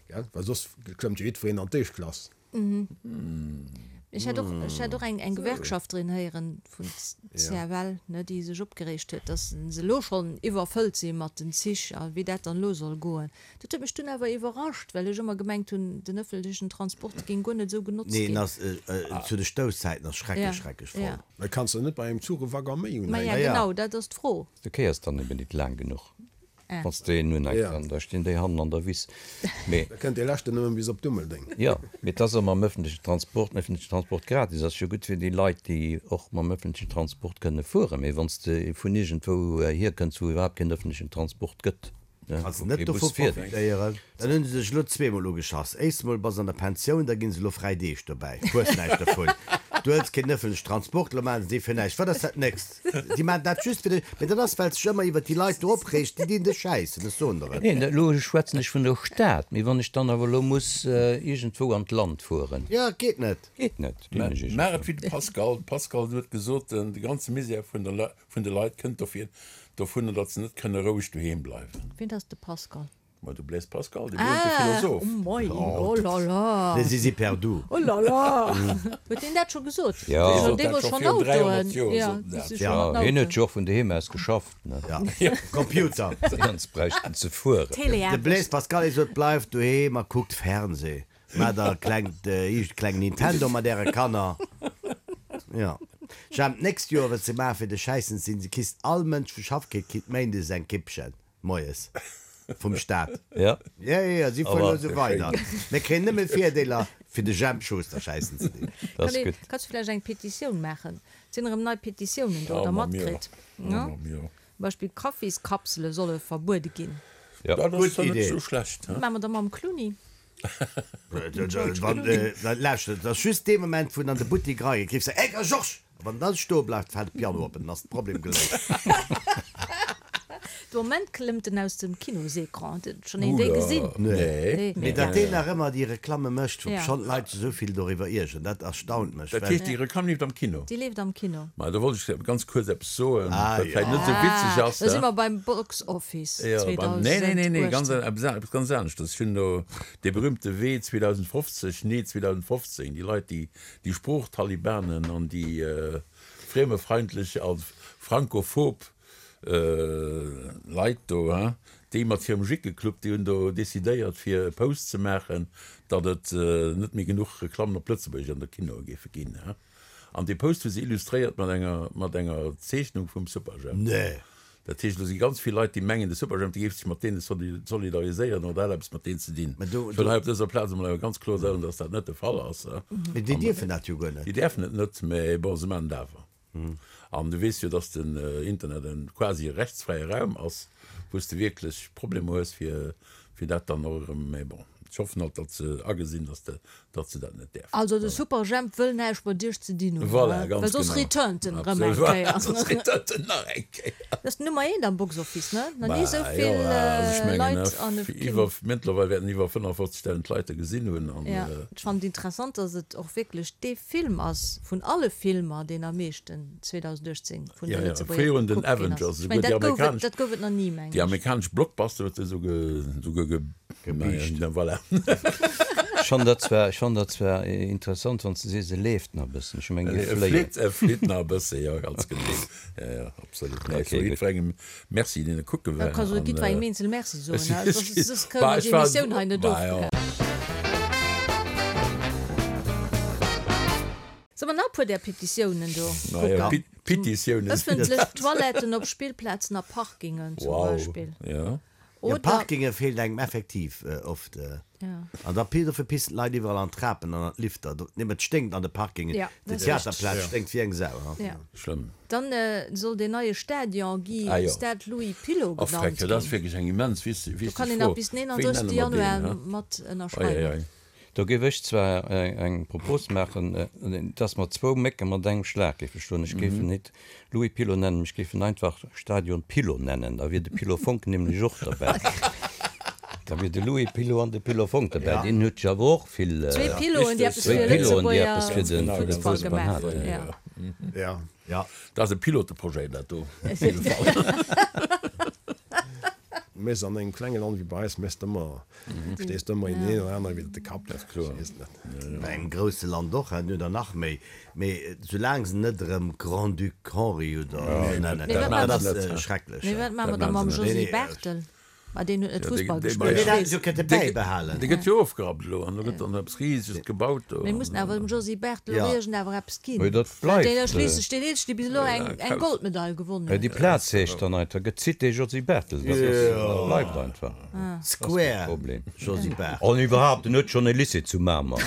Speaker 5: gell? Well soss klëmmt jo jiddwereen an d'éischt Klass.
Speaker 1: Ech hat och, ech hat och eng, eng Gewerkschafterin héieren vun CFL, ne, déi sech opgereegt huet, dass se elo schonn iwwerfëllt si mat den Zich a wéi dat dann elo soll goen. Dat huet mech dunn awer iwwerrascht, well ech ëmmer gemengt hunn, den ëffentlechen Transport géing guer net esou genotzt
Speaker 4: Nee,
Speaker 1: ginn.
Speaker 4: en ass, zu de Stousszäiten ass schrecklech, schrecklech voll.
Speaker 5: Mä kanns de net bei engem Zuch e Waggon méi
Speaker 1: unhänken? Maja, genau, dat ass d'Fro.
Speaker 2: Du kéiers dann eben nit laang genuch. Wann s de een unhänks, dann da stinn déi hannen an der Wiss. Mee.
Speaker 5: Da kënnt dee leschten nëmmen bis op Dummeldeng.
Speaker 2: Jo, mee et ass och mam öffentlechen Transport, den öffentlechen Transport gratis ass jo gutt fir déi Leit, déi och mam öffentlechen Transport kënne fueren. Mee wann s de vun iergendwou hierkënns, wou iwwerhaapt keen öffentlechen Transport gëtt, ne,
Speaker 4: Kanns
Speaker 2: wou
Speaker 4: net
Speaker 2: kee Bus
Speaker 4: dovu
Speaker 2: fiert.
Speaker 4: profitéieren. Dann hunn se sech elo zweemol ugeschass. Éischst mol bass an der Pensioun, da ginn se elo fräi Deeg dobäi. Hues näischt dovun. Du hëls keen ëffentlechen Transport, elo maachen se dee fir näischt. Wat ass dat nächst? Si maachen dat just fir dech. Mee dat ass, well s dech ëmmer iwwert déi Leit do opreegs. Déi dinn dech schäissen, ech soen der et.
Speaker 2: Neen, elo schwätzen ech vun der Stad. Mee wann ech dann awer elo muss iergendwou an d'Land fueren.
Speaker 4: Jo, et geet net.
Speaker 2: Geet net.
Speaker 3: Maach et wéi de Pascal. De Pascal huet gesot, de ganze Misär vun de Leit kënnt dofir, dovunner, datt se net kënne roueg doheem bleiwen.
Speaker 1: Wien ass de Pascal?
Speaker 3: Ma du Blaise Pascal, dee berühmte Philosoph.
Speaker 1: Ah, oh moi, oh là là.
Speaker 4: Les zizi perdu.
Speaker 1: Oh là là. Huet deen dat scho gesot?
Speaker 2: Jo.
Speaker 3: Dee sot
Speaker 1: Dee
Speaker 3: dat
Speaker 1: wor
Speaker 3: scho
Speaker 1: schonn
Speaker 3: virun
Speaker 1: Autoen.
Speaker 3: 300 Joer,
Speaker 1: Ja,
Speaker 3: sot en
Speaker 1: déi
Speaker 3: dat.
Speaker 1: si scho
Speaker 2: Ja,
Speaker 1: mat
Speaker 2: hien huet
Speaker 1: Autoen.
Speaker 2: jo och vun doheem aus geschafft, ne?
Speaker 4: Ja, Computer.
Speaker 2: Sonst bräicht en ze fueren.
Speaker 4: De
Speaker 1: Teleaarbecht.
Speaker 4: Blaise Pascal, hie sot, bleift doheem a kuckt Fernseh. Maacht der e klengt, iicht kleng Nintendo mat äre Kanner. Jo. Jemp, d'nächst Joer, wat se maachen fir de Schäissen ze sinn, se kisst all Mënsch vu Schaff kritt, kritt méindes eng Kippchen. Moies. Vum Staat.
Speaker 2: Ja.
Speaker 4: Ja, ja, ja, si fueren elo esou weider. Mir kréien nëmme Virdeeler, fir de Jemp Schuster schäissen ze dinn.
Speaker 2: Dat ass gutt.
Speaker 1: Kanns du vläicht eng Petitioun maachen? Et sinn erëm nei Petitiounen do, der matkritt, ne? Zum Beispill Kaffiskapsele solle verbuede ginn.
Speaker 2: Ja.
Speaker 3: Dat ass
Speaker 4: Gutt
Speaker 3: zwar net
Speaker 4: Idee.
Speaker 3: esou schlecht, he?
Speaker 1: Wat maache mer da mam Clooney?
Speaker 4: Lauschtert, et ass just dee Moment, wou en an de Buttek erageet, rifft se, Hey, Georges! A wann en dann stoe bleift, fält de Piano op an dann ass de Problem geléist.
Speaker 1: De Moment klëmmt en aus dem Kinosecran. Huet schonn een déi gesinn?
Speaker 4: Nee. Mee datt deen nach ëmmer déi Reklamme mécht, wou schonn d'Leit sech esou vill doriwwer iergeren, dat erstaunt mech.
Speaker 3: Dat heescht, déi Reklamm leeft am Kino?
Speaker 1: Déi leeft am Kino.
Speaker 3: Ma do wollt ech ganz kuerz eppes soen, wat vläicht net esou witzeg ass.
Speaker 1: Da si mer beim Box Office 2018.
Speaker 3: Nee, nee, nee, nee, ganz, eppes ganz aneschters. Ech hunn do dee berühmte Wee 2050, nee 2015, déi Leit, déi, déi Sproochtalibanen an déi friemefeindlech a frankophob Leit do, hein, déi mat hirem Jickeclub, déi hunn do decidéiert fir e Post ze maachen, datt et net méi genuch Reklammen op Lëtzebuergesch an de Kinoe géife ginn, hein. An dee Post hu se illustréiert mat enger, mat enger Zeechnung vum Superjhemp.
Speaker 4: Nee.
Speaker 3: Dat heescht, do si ganz vill Leit, déi mengen, de Superjhemp, dee géif sech mat deene solidariséieren oder hätt eppes mat deenen ze dinn.
Speaker 4: Mä do,
Speaker 3: Ech wëll hei op dëser Plaz emol awer ganz kloer soen, datt dat net de Fall ass.
Speaker 4: Mee déi dierfen dat jo guer net.
Speaker 3: Déi däerfen et net, mä bon, se maachen et awer. An du weess jo, dass den Internet en quasi rechtsfräie Raum ass, wou s de wierklech Problemer hues, fir dat dann och erëm, mä bon, ech hoffen halt, datt se agesinn, datt de, datt se dat net däerfen.
Speaker 1: Also de Superjhemp wëll näischt mat Iech ze dinn hunn,
Speaker 3: Voilà, ganz
Speaker 1: well soss
Speaker 3: genau.
Speaker 1: returnt en erëm eng
Speaker 3: Absolut, voilà,
Speaker 1: Kéier.
Speaker 3: soss returnt en nach eng Kéier.
Speaker 1: Dat ass Nummer eent am Box Office, ne? Nach ni
Speaker 3: Bah,
Speaker 1: esou
Speaker 3: jo,
Speaker 1: vill
Speaker 3: also ech mengen,
Speaker 1: Leit an e Kino.
Speaker 3: iwwer, mëttlerweil wäerten iwwer 55.000 Leit e gesinn hunn an.
Speaker 1: Ja, ech fannen et interessant, datt et och wierklech dee Film ass vun alle Filmer, deen am meeschten 2018 vun de
Speaker 3: Ja, ja,
Speaker 1: Lëtzebuerger
Speaker 3: fréier hunn den
Speaker 1: gekuckt ginn ass.
Speaker 3: Avengers,
Speaker 1: Ech mengen,
Speaker 3: esouguer déi
Speaker 1: dat gouf et,
Speaker 3: amerikanesch,
Speaker 1: dat gouf et nach ni, mengen
Speaker 3: déi
Speaker 1: ech.
Speaker 3: amerikanesch Blockbuster huet se esouguer, esouguer ge,
Speaker 4: Gebiischt.
Speaker 3: naja, voilà.
Speaker 2: Ech fannen dat zwar, ech fannen dat zwar interessant, wann s de sees, e leeft nach e bëssen. Ech mengen, e
Speaker 3: E
Speaker 2: fléiert.
Speaker 3: flitt, e flitt nach e bësse, jo, ganz genee. Ja, ja, absolut. Nee, ech
Speaker 2: Okay,
Speaker 3: soe
Speaker 2: gutt.
Speaker 3: jiddwerengem Merci, deen e kucke
Speaker 1: Da
Speaker 3: war.
Speaker 1: kanns du
Speaker 3: An,
Speaker 1: jiddwerengem eenzel Merci soen,
Speaker 3: ech,
Speaker 1: hè,
Speaker 3: ech,
Speaker 1: soss, soss kënne
Speaker 3: bah,
Speaker 1: mer
Speaker 3: ech
Speaker 1: déi
Speaker 3: war,
Speaker 1: Emissioun hei net
Speaker 3: bah, jo.
Speaker 1: ofbrechen. Solle mer nach e puer där Petitiounen do
Speaker 3: Naja,
Speaker 1: kucken?
Speaker 3: Petitiounen sinn et.
Speaker 1: Ëffentlech Toiletten op Spillplazen a Parkingen zum
Speaker 3: Wow,
Speaker 1: Beispill.
Speaker 3: ja.
Speaker 4: Jo, Parkinge feelt engem effektiv oft. An da dofir pissen d'Leit iwwerall an d'Trapen an an d'Lifter. Nee, et sténkt an de Parkingen. Déi Theaterplaz sténkt wéi eng Sau.
Speaker 3: Schlëmm.
Speaker 1: Dann soll deen neie Stadion gi Stade Louis Pilot genannt ginn.
Speaker 3: Dat ass wierklech eng immens wichteg Fro.
Speaker 1: Do kann een nach bis den 31. Januar mat ënnerschreiwen.
Speaker 2: Do géif ech zwar eng Propos maachen, dass mer zwou Mécke mat engem Schlag géife schloen. Ech géif en net Louis Pilot nennen, ech géif en einfach Stadion Pilot nennen. Da wier de Pilot Fonck nämlech och derbäi. Da wier de Louis Pilot an de Pilot Fonck derbäi. Deen huet jo awer och vill.
Speaker 1: Zwee Piloten, déi eppes fir de Lëtzebuerger Fussball gemaach hunn.
Speaker 3: Jo. Dat ass e Piloteprojet, dat do, op jidde Fall.
Speaker 5: Mess an engem klenge Land wéi bei eis méchs de ëmmer, stees de ëmmer een een oder anere widder de Kapp, dat ass kloer.
Speaker 4: Bei engem grousse Land och, hei oder nach méi, mee soulaang se net erëm Grand-Duc Henri oder esou nennen, dat ass schrecklech.
Speaker 1: Mee wat maache mer da mam Josy Barthel? Ma deen huet net Fussball gespillt.
Speaker 4: Deen hätt se jo kënnte bäibehalen.
Speaker 3: Dee gëtt jo ofgerappt elo an elo gëtt dann eppes Riseges gebaut do.
Speaker 1: Mir mussen awer dem Josy Barthel och iergend awer eppes ginn.
Speaker 2: Mee dat bleift.
Speaker 1: Deen ass schliisslech deen eenzegen, dee bis elo eng Goldmedail gewonnen huet.
Speaker 2: Déi Plaz heescht dann einfach, gëtt Cité Josy Barthel. Dat ass, dat bleift einfach.
Speaker 4: Square Josy Barthel.
Speaker 2: An iwwerhaapt, en huet schonn e Lycée zu Mamer.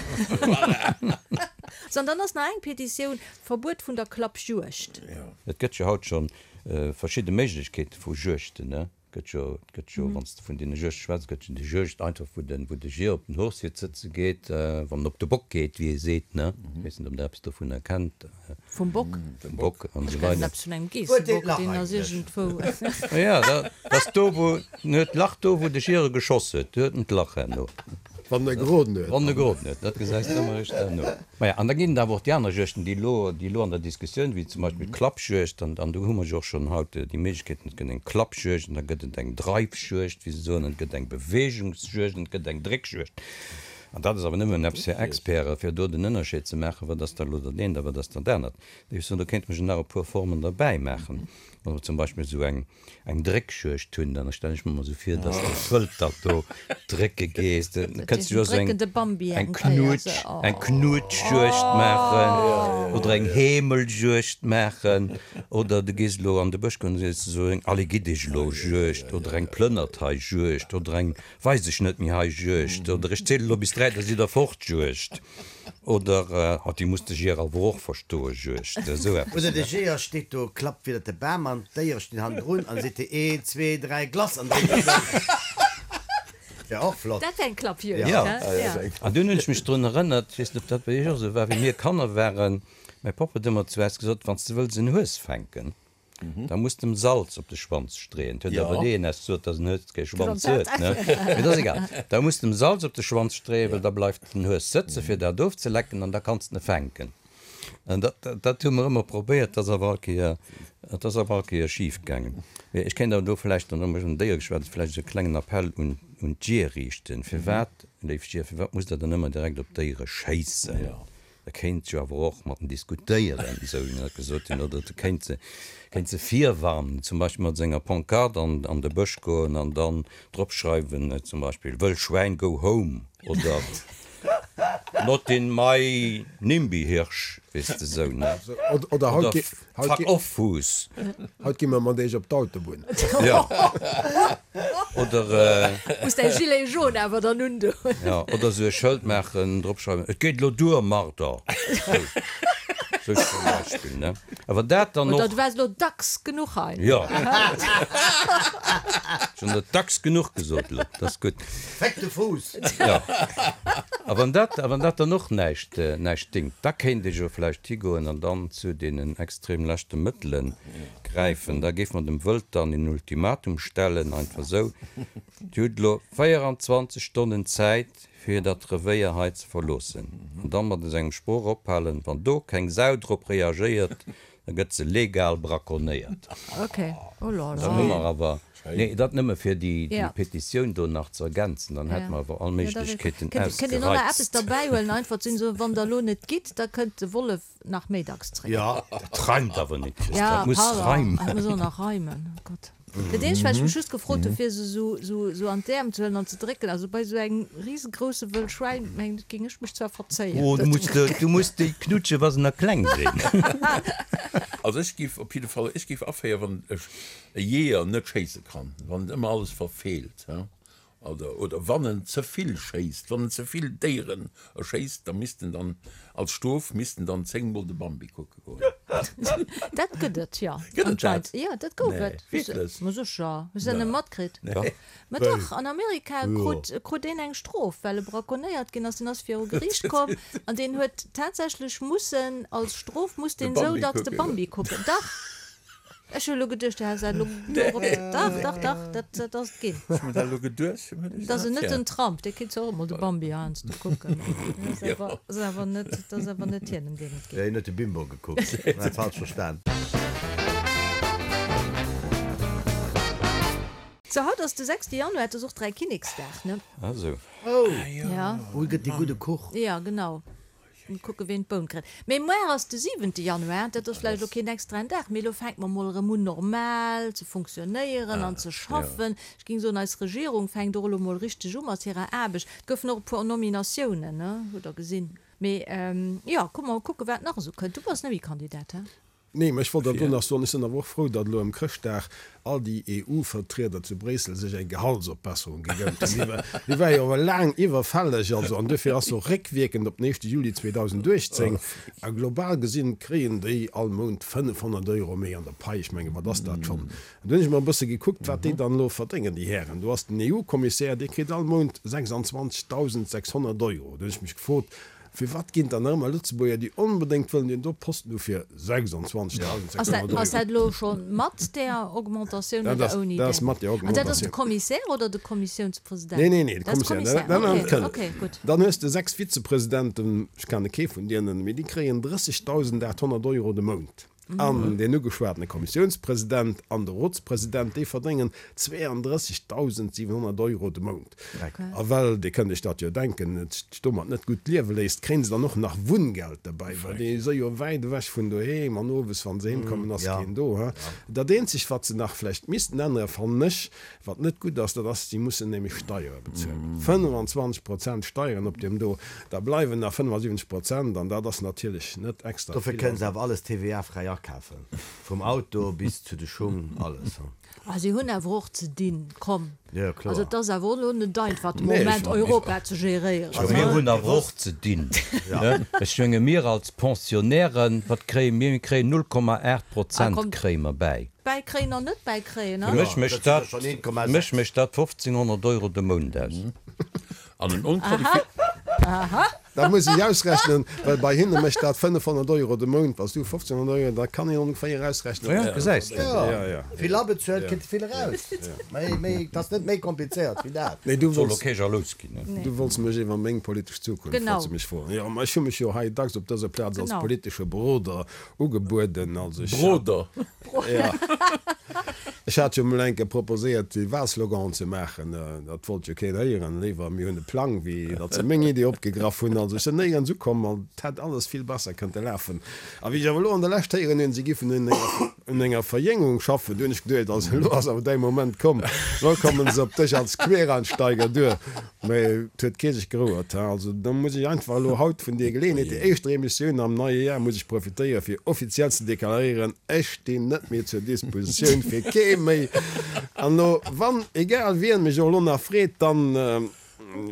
Speaker 1: Sou, an dann ass nach eng Petitioun, Verbuet vun der Klappjuegd.
Speaker 2: Et gëtt jo haut schonn verschidde Méiglechkeete vu Juegten, ne? Gëtt jo, et gëtt jo, wann s de vun deene Juegte schwätz, gëtt jo déi Juegd einfach, wou de, wou de Jier op den Hochsiert sëtze geet, wann en op de Bock geet, wéi ee seet, ne? Ech weess net, ob Der eppes dovunner kennt.
Speaker 1: Vum Bock?
Speaker 2: Vum Bock an esou weider.
Speaker 1: Ech kennen eppes vun engem Geessebock, deen ass iergendwou.
Speaker 2: Jo, dat ass do, wou, en huet d'Lach do, wou de Jier e geschoss huet, do huet en d'Lach herno.
Speaker 5: Wann e geroden huet.
Speaker 2: Wann e geroden huet, dat gesäis de ëmmer eréischt herno. Maja, an da ginn et awer och déi aner Juegten, déi elo, déi elo an der Diskussioun, wéi zum Beispill d'Klappjuegd, an, an do hu mer jo och schonn haut déi Méiglechkeeten, et gëtt eng Klappjuegd an da gëtt et eng Dreifjuegd, wéi se soen, an et gëtt eng Beweegungsjuegd an et gëtt eng Dréckjuegd. An dat ass awer nëmmen eppes fir Experten, fir do den Ënnerscheed ze maachen, wat ass da elo dat eent a wat ass dat anert. Ech soen, do kéinte mer jo nach e puer Formen derbäi maachen, wa mer zum Beispill esou eng, eng Dréckjuegd hunn, dann stellen ech mer emol esou vir, dass de Wëld dat do drécke gees. Da kënns du jo esou eng eng Knutsch, eng Knutschjuegd maachen oder eng Heemeljuegd maachen oder du gees elo an de Bësch goen an sees esou eng Alle-gitt-dech-elo-Juegd oder eng Plënnert-hei-Juegd oder eng Weis ech net méi hei Juegd oder ech ziele lo bis 3, da sidd der fort Juegd oder oh déi muss de Jeeër awer och verstoe Juegd, esou eppes.
Speaker 4: Oder de Jeeër steet do, klappt widder de Bam an d'Déiere stinn hannendrun an seet een, zwee, dräi, Glass an dréit sech ëm. Wär och flott.
Speaker 1: Dat wär eng Klappjuegd, he?
Speaker 2: Jo, an dunn hunn ech mech drun erënnert, ech weess net ob dat bei iech och esou war, wéi mir Kanner waren, mäi Papp huet ëmmer zu eis gesot, wann s de wëlls en Hues fänken, Da muss de em Salz op de Schwanz streeën. Et huet awer deen es gesot, dass en Hues kee Schwanz huet, ne? Mee dat ass egal. Da muss de em Salz op de Schwanz streeën, well da bleift den Hues sëtzen, fir dat ofzelecken, an da kanns de en fänken. An dat, dat hu mer ëmmer probéiert, dat ass awer all Kéier, dat ass awer all Kéier schif gaangen. Mee ech kéint awer do vläicht, an elo ech un Déier geschwat hunn, vläicht esou e klengen Appell un, un d'Jeeër riichten. Firwat, léif Jeeër, firwat musst Der dann ëmmer direkt op d'Déiere schéissen? E kéint jo awer och mat en diskutéieren, esou wéi mir dat gesot hunn, oder e kéint se, kéint se virwarnen, zum Beispill mat senger Pancarte an, an de Bësch goen an dann drop schreiwen, zum Beispill, Wëll Schwäin, go home oder Not in my Nimby-Hirsch, weess de, esou, ne?
Speaker 5: Oder haut gi, haut
Speaker 2: Fuck off, Fuuss.
Speaker 5: Haut gi mer mat iech op d'Autobunn.
Speaker 2: Jo. Oder.
Speaker 1: Muss däi Gilet jaune awer dann undoen.
Speaker 2: Jo, oder esou e Schëld maachen, drop schreiwen, Et geet elo duer, Marder! Sou, sou zum Beispill, ne? Awer dat dann och.
Speaker 1: Oder du waars elo dacks genuch hei.
Speaker 2: Jo. Ech hunn dat dacks genuch gesot elo, dat ass gutt.
Speaker 4: Féck de Fuuss!
Speaker 2: Jo. A wann dat, a wann dat dann och näischt, näischt dingt, da kéint ee jo vläicht higoen an dann zu deenen extrem leschte Mëttele gräifen. Da géife mer dem Wëld dann een Ultimatum stellen, einfach esou, Dir hutt elo 24 Stonnen Zäit, fir dat Revéier hei ze verloossen. An da mat esou engem Sproch ophalen, Wann do keng Sau drop reagéiert, da gëtt se legal braconnéiert. Dann hu mer awer, nee, dat nëmme fir déi Petitioun do nach ze ergänzen, dann hätte mer awer all Méiglechkeeten
Speaker 1: ausgereizt. Kënnt een och nach eppes derbäihuelen, einfach ze soen, wann der elo net gitt, da kënnt de Wollef nach méi dacks zréck.
Speaker 2: Dat reimt awer net, Chris, dat muss reimen.
Speaker 1: Dat muss och nach reimen, oh Gott. Dat eenzegt, wat ech mech just gefrot hunn, fir se esou an d'Äerm ze huelen an ze drécken, also bei esou engem risegrousse Wëll Schwäin, mengen ech, géing ech mech zwar verzéien.
Speaker 2: Oh, du muss, du muss déi knutschen, wa se nach kleng sinn.
Speaker 3: Also ech géif op jidde Fall, ech géif aféieren, wann ech e Jeeër net schéisse kann, wann en ëmmer alles verfeelt, oder, oder wann en ze vill schéisst, wann en ze vill Déieren erschéisst, da misst en dann als Strof misst en dann zéngmol de Bambi kucke goen.
Speaker 1: Dat gëtt et, jo.
Speaker 3: Gëtt et dat?
Speaker 1: Jo, dat gouf
Speaker 3: Nee,
Speaker 1: et.
Speaker 3: wierklech?
Speaker 1: Ma sécher. Hues de dat net matkritt?
Speaker 3: Nee.
Speaker 1: Ma dach, an Amerika krut, krut een eng Strof, well e braconnéiert ginn ass. Deen ass viru Geriicht komm an deen huet tatsächlech mussen, als Strof musst
Speaker 3: De
Speaker 1: deen esou
Speaker 3: Bambi
Speaker 1: dacks de
Speaker 3: kucke goen.
Speaker 1: Bambi kucken. Dach! Ech hu elo geduecht, du häss dat elo dorop. Dach, dach, dach, dat, dat ass et ginn.
Speaker 3: Ech hu mer dat elo geduecht.
Speaker 1: Dat ass net den Trump, dee kritt zwar och emol de Bambi heiansdo kucken. Dat ass awer net, dat ass awer net hien, ëm deen et geet.
Speaker 4: Hien huet de Bimbo gekuckt. Huet dat falsch verstan.
Speaker 1: Sou, haut ass de sechste Januar, et ass och Dräikinneksdag, ne?
Speaker 2: Ah sou.
Speaker 4: Oh!
Speaker 1: Ja.
Speaker 4: Wou gëtt dee gudde Kuch?
Speaker 1: Ja, genau. Mol kucke ween d'Boun kritt. Mee muar ass de siwente Januar, dat ass vläicht elo keen extraen Dag, mee elo fänke mer mol erëm un normal ze funktionéieren an ze schaffen. Ech géing soen, eis Regierung fänkt och elo mol richteg u mat hirer Aarbecht. Et goufen och e puer Nominatiounen, ne, hutt der gesinn. Mee jo, kuck mol kucke wat nach esou kënnt. Du bass net méi Kandidat, he?
Speaker 5: Nee, mä ech wollt awer do nach soen, ech sinn awer och frou, datt elo ëm Chrëschtdag all déi EU-Vertrieder zu Bréissel sech eng Gehaltsopbesserung gegönnt hunn. Déi war jo awer laang iwwerfälleg, also, an duerfir ass se och réckwierkend op den éischte Juli 2018. A global gesinn kréien déi all Mount 500 Euro méi an der Pai. Ech menge wat ass dat schonn? An du hunn ech mer e bësse gekuckt, wat déi dann elo verdéngen, déi Hären. Do ass den EU-Kommissär, dee kritt all Mount 26.600 Euro. Do hunn ech mech gefrot, Firwat ginn dann nach ëmmer Lëtzebuerger, déi onbedéngt wëllen deen do Posten hu fir 26.600 Euro?
Speaker 1: Ass dat elo scho mat där Augmentatioun oder ouni
Speaker 5: Dat ass mat där
Speaker 1: An dat ass de
Speaker 5: Augmentatioun.
Speaker 1: Commissaire oder de Kommissiounspresident?
Speaker 5: Nee, nee, nee, de
Speaker 1: Dat ass de
Speaker 5: Commissaire.
Speaker 1: Commissaire,
Speaker 5: Dat
Speaker 1: okay,
Speaker 5: kënnt.
Speaker 1: okay, gutt.
Speaker 5: Dann hues de 6 Vizepresidenten, ech kenne kee vun deenen, mee déi kréien 30.800 Euro de Mount. An deen ugeschwatene Kommissiounspresident an de Rotspresident, déi verdéngen 32.700 Euro de Mount. A well, Dir kënnt Iech dat jo denken, et sech domat net gutt liewe léisst, kréien se dann och nach Wunngeld derbäi, well déi si jo wäit ewech vun doheem an owes, wa se heem kommen, ass keen do. Dat eenzegt, wat se nach vläicht missten änneren, fannen ech, Wat net gutt ass, dat ass, si mussen nämlech Steiere bezuelen, 25 Prozent Steieren op deem do, da bleiwen nach 75 Prozent an dat ass natierlech net extra
Speaker 4: Dofir
Speaker 5: vill.
Speaker 4: kënnen se awer alles TVA-fräi akafen, vum Auto bis zu de Schung, alles.
Speaker 1: Ah, si hunn awer och ze dinn, komm.
Speaker 4: Jo, kloer.
Speaker 1: Also et ass awer och elo net einfach de
Speaker 5: Nee, ech
Speaker 1: Moment
Speaker 5: war-
Speaker 1: Europa ze geréieren.
Speaker 2: Jo, mir hunn awer och ze dinn. Ech menge mir als Pensionnairen, wat kréie mir? Mir kréien 0,8 Prozent kréie mer bäi.
Speaker 1: Bäikréien an net bäikréien,
Speaker 2: Fir mech mécht dat, mech mécht dat 1500 Euro de Mount aus.
Speaker 3: An en onqualifi.
Speaker 5: Dat muss ech ausrechnen, well bei hinne mécht dat 500 Euro de Mount. Wann s du 1500 Euro, da kann een ongeféier ausrechnen.
Speaker 2: Ja, gesäis de.
Speaker 5: Ja, ja.
Speaker 4: Vill abezuelt, kritt vill eraus. Méi, méi, et ass net méi komplizéiert wéi dat.
Speaker 5: Nee, du
Speaker 2: Soll
Speaker 5: wolls,
Speaker 2: och kee jalous ginn, ne?
Speaker 5: du wolls mech iwwer meng politesch Zukunft,
Speaker 1: Genau.
Speaker 5: wolls du mech froen. Jo, ma ech hu mech jo hei dacks op dëser Plaz als
Speaker 1: Genau.
Speaker 5: politesche Beroder ugebueden. Also ech hat.
Speaker 3: Broder.
Speaker 5: Ja. Ech hat jo mol eng Kéier proposéiert, déi Wahlsloganen ze maachen. Dat wollt jo keen héieren. Léiwer mir hunn e Plang, wéi datt se meng Idee opgegraff hunn. Also ech sinn néierens ukomm an et hätt alles vill besser kënnte lafen. A wéi ech awer elo an der Lescht héieren hunn, si giffen un enger, un enger Verjéngung schaffen, du hunn ech geduecht, also elo ass awer däi Moment komm, elo kommen se op dech als Quereinsteiger duer. Mä et huet kee sech gerouert. Also da muss ech einfach elo haut vun deer Geleeënheet, déi éischter Emissioun am neie Jar, muss ech profitéieren, fir offiziell ze deklaréieren, Ech stinn net méi zur Dispositioun fir kee méi. An elo, wann egal wien mech och elo nach freet, dann,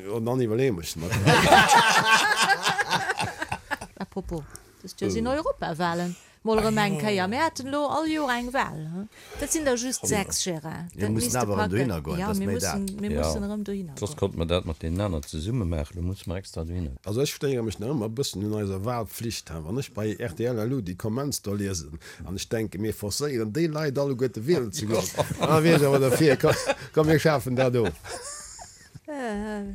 Speaker 5: jo, dann iwwerleeë mech mer dat.
Speaker 1: À propos, dëst Joer sinn Europawahlen. Mol erëm eng Kéier. Mir haten elo all Joer eng Wahl. Dat sinn der just 6, Gérard.
Speaker 4: Mir mussen awer erëm dohinner goen, dat ass méi dat.
Speaker 1: Mir mussen erëm dohinner goen.
Speaker 2: Soss konnte mer dat mat deenen aneren zesumme maachen. Elo musse mer extra dohinner.
Speaker 5: Also ech stéiere mech nach ëmmer e bëssen un eiser Wahlpflicht. Wann ech bei rtl elo déi Comments do liesen an ech denken, mir forcéieren déi Leit alleguerte wielen ze goen, da wier ech awer derfir. Komm mir schafen dat of.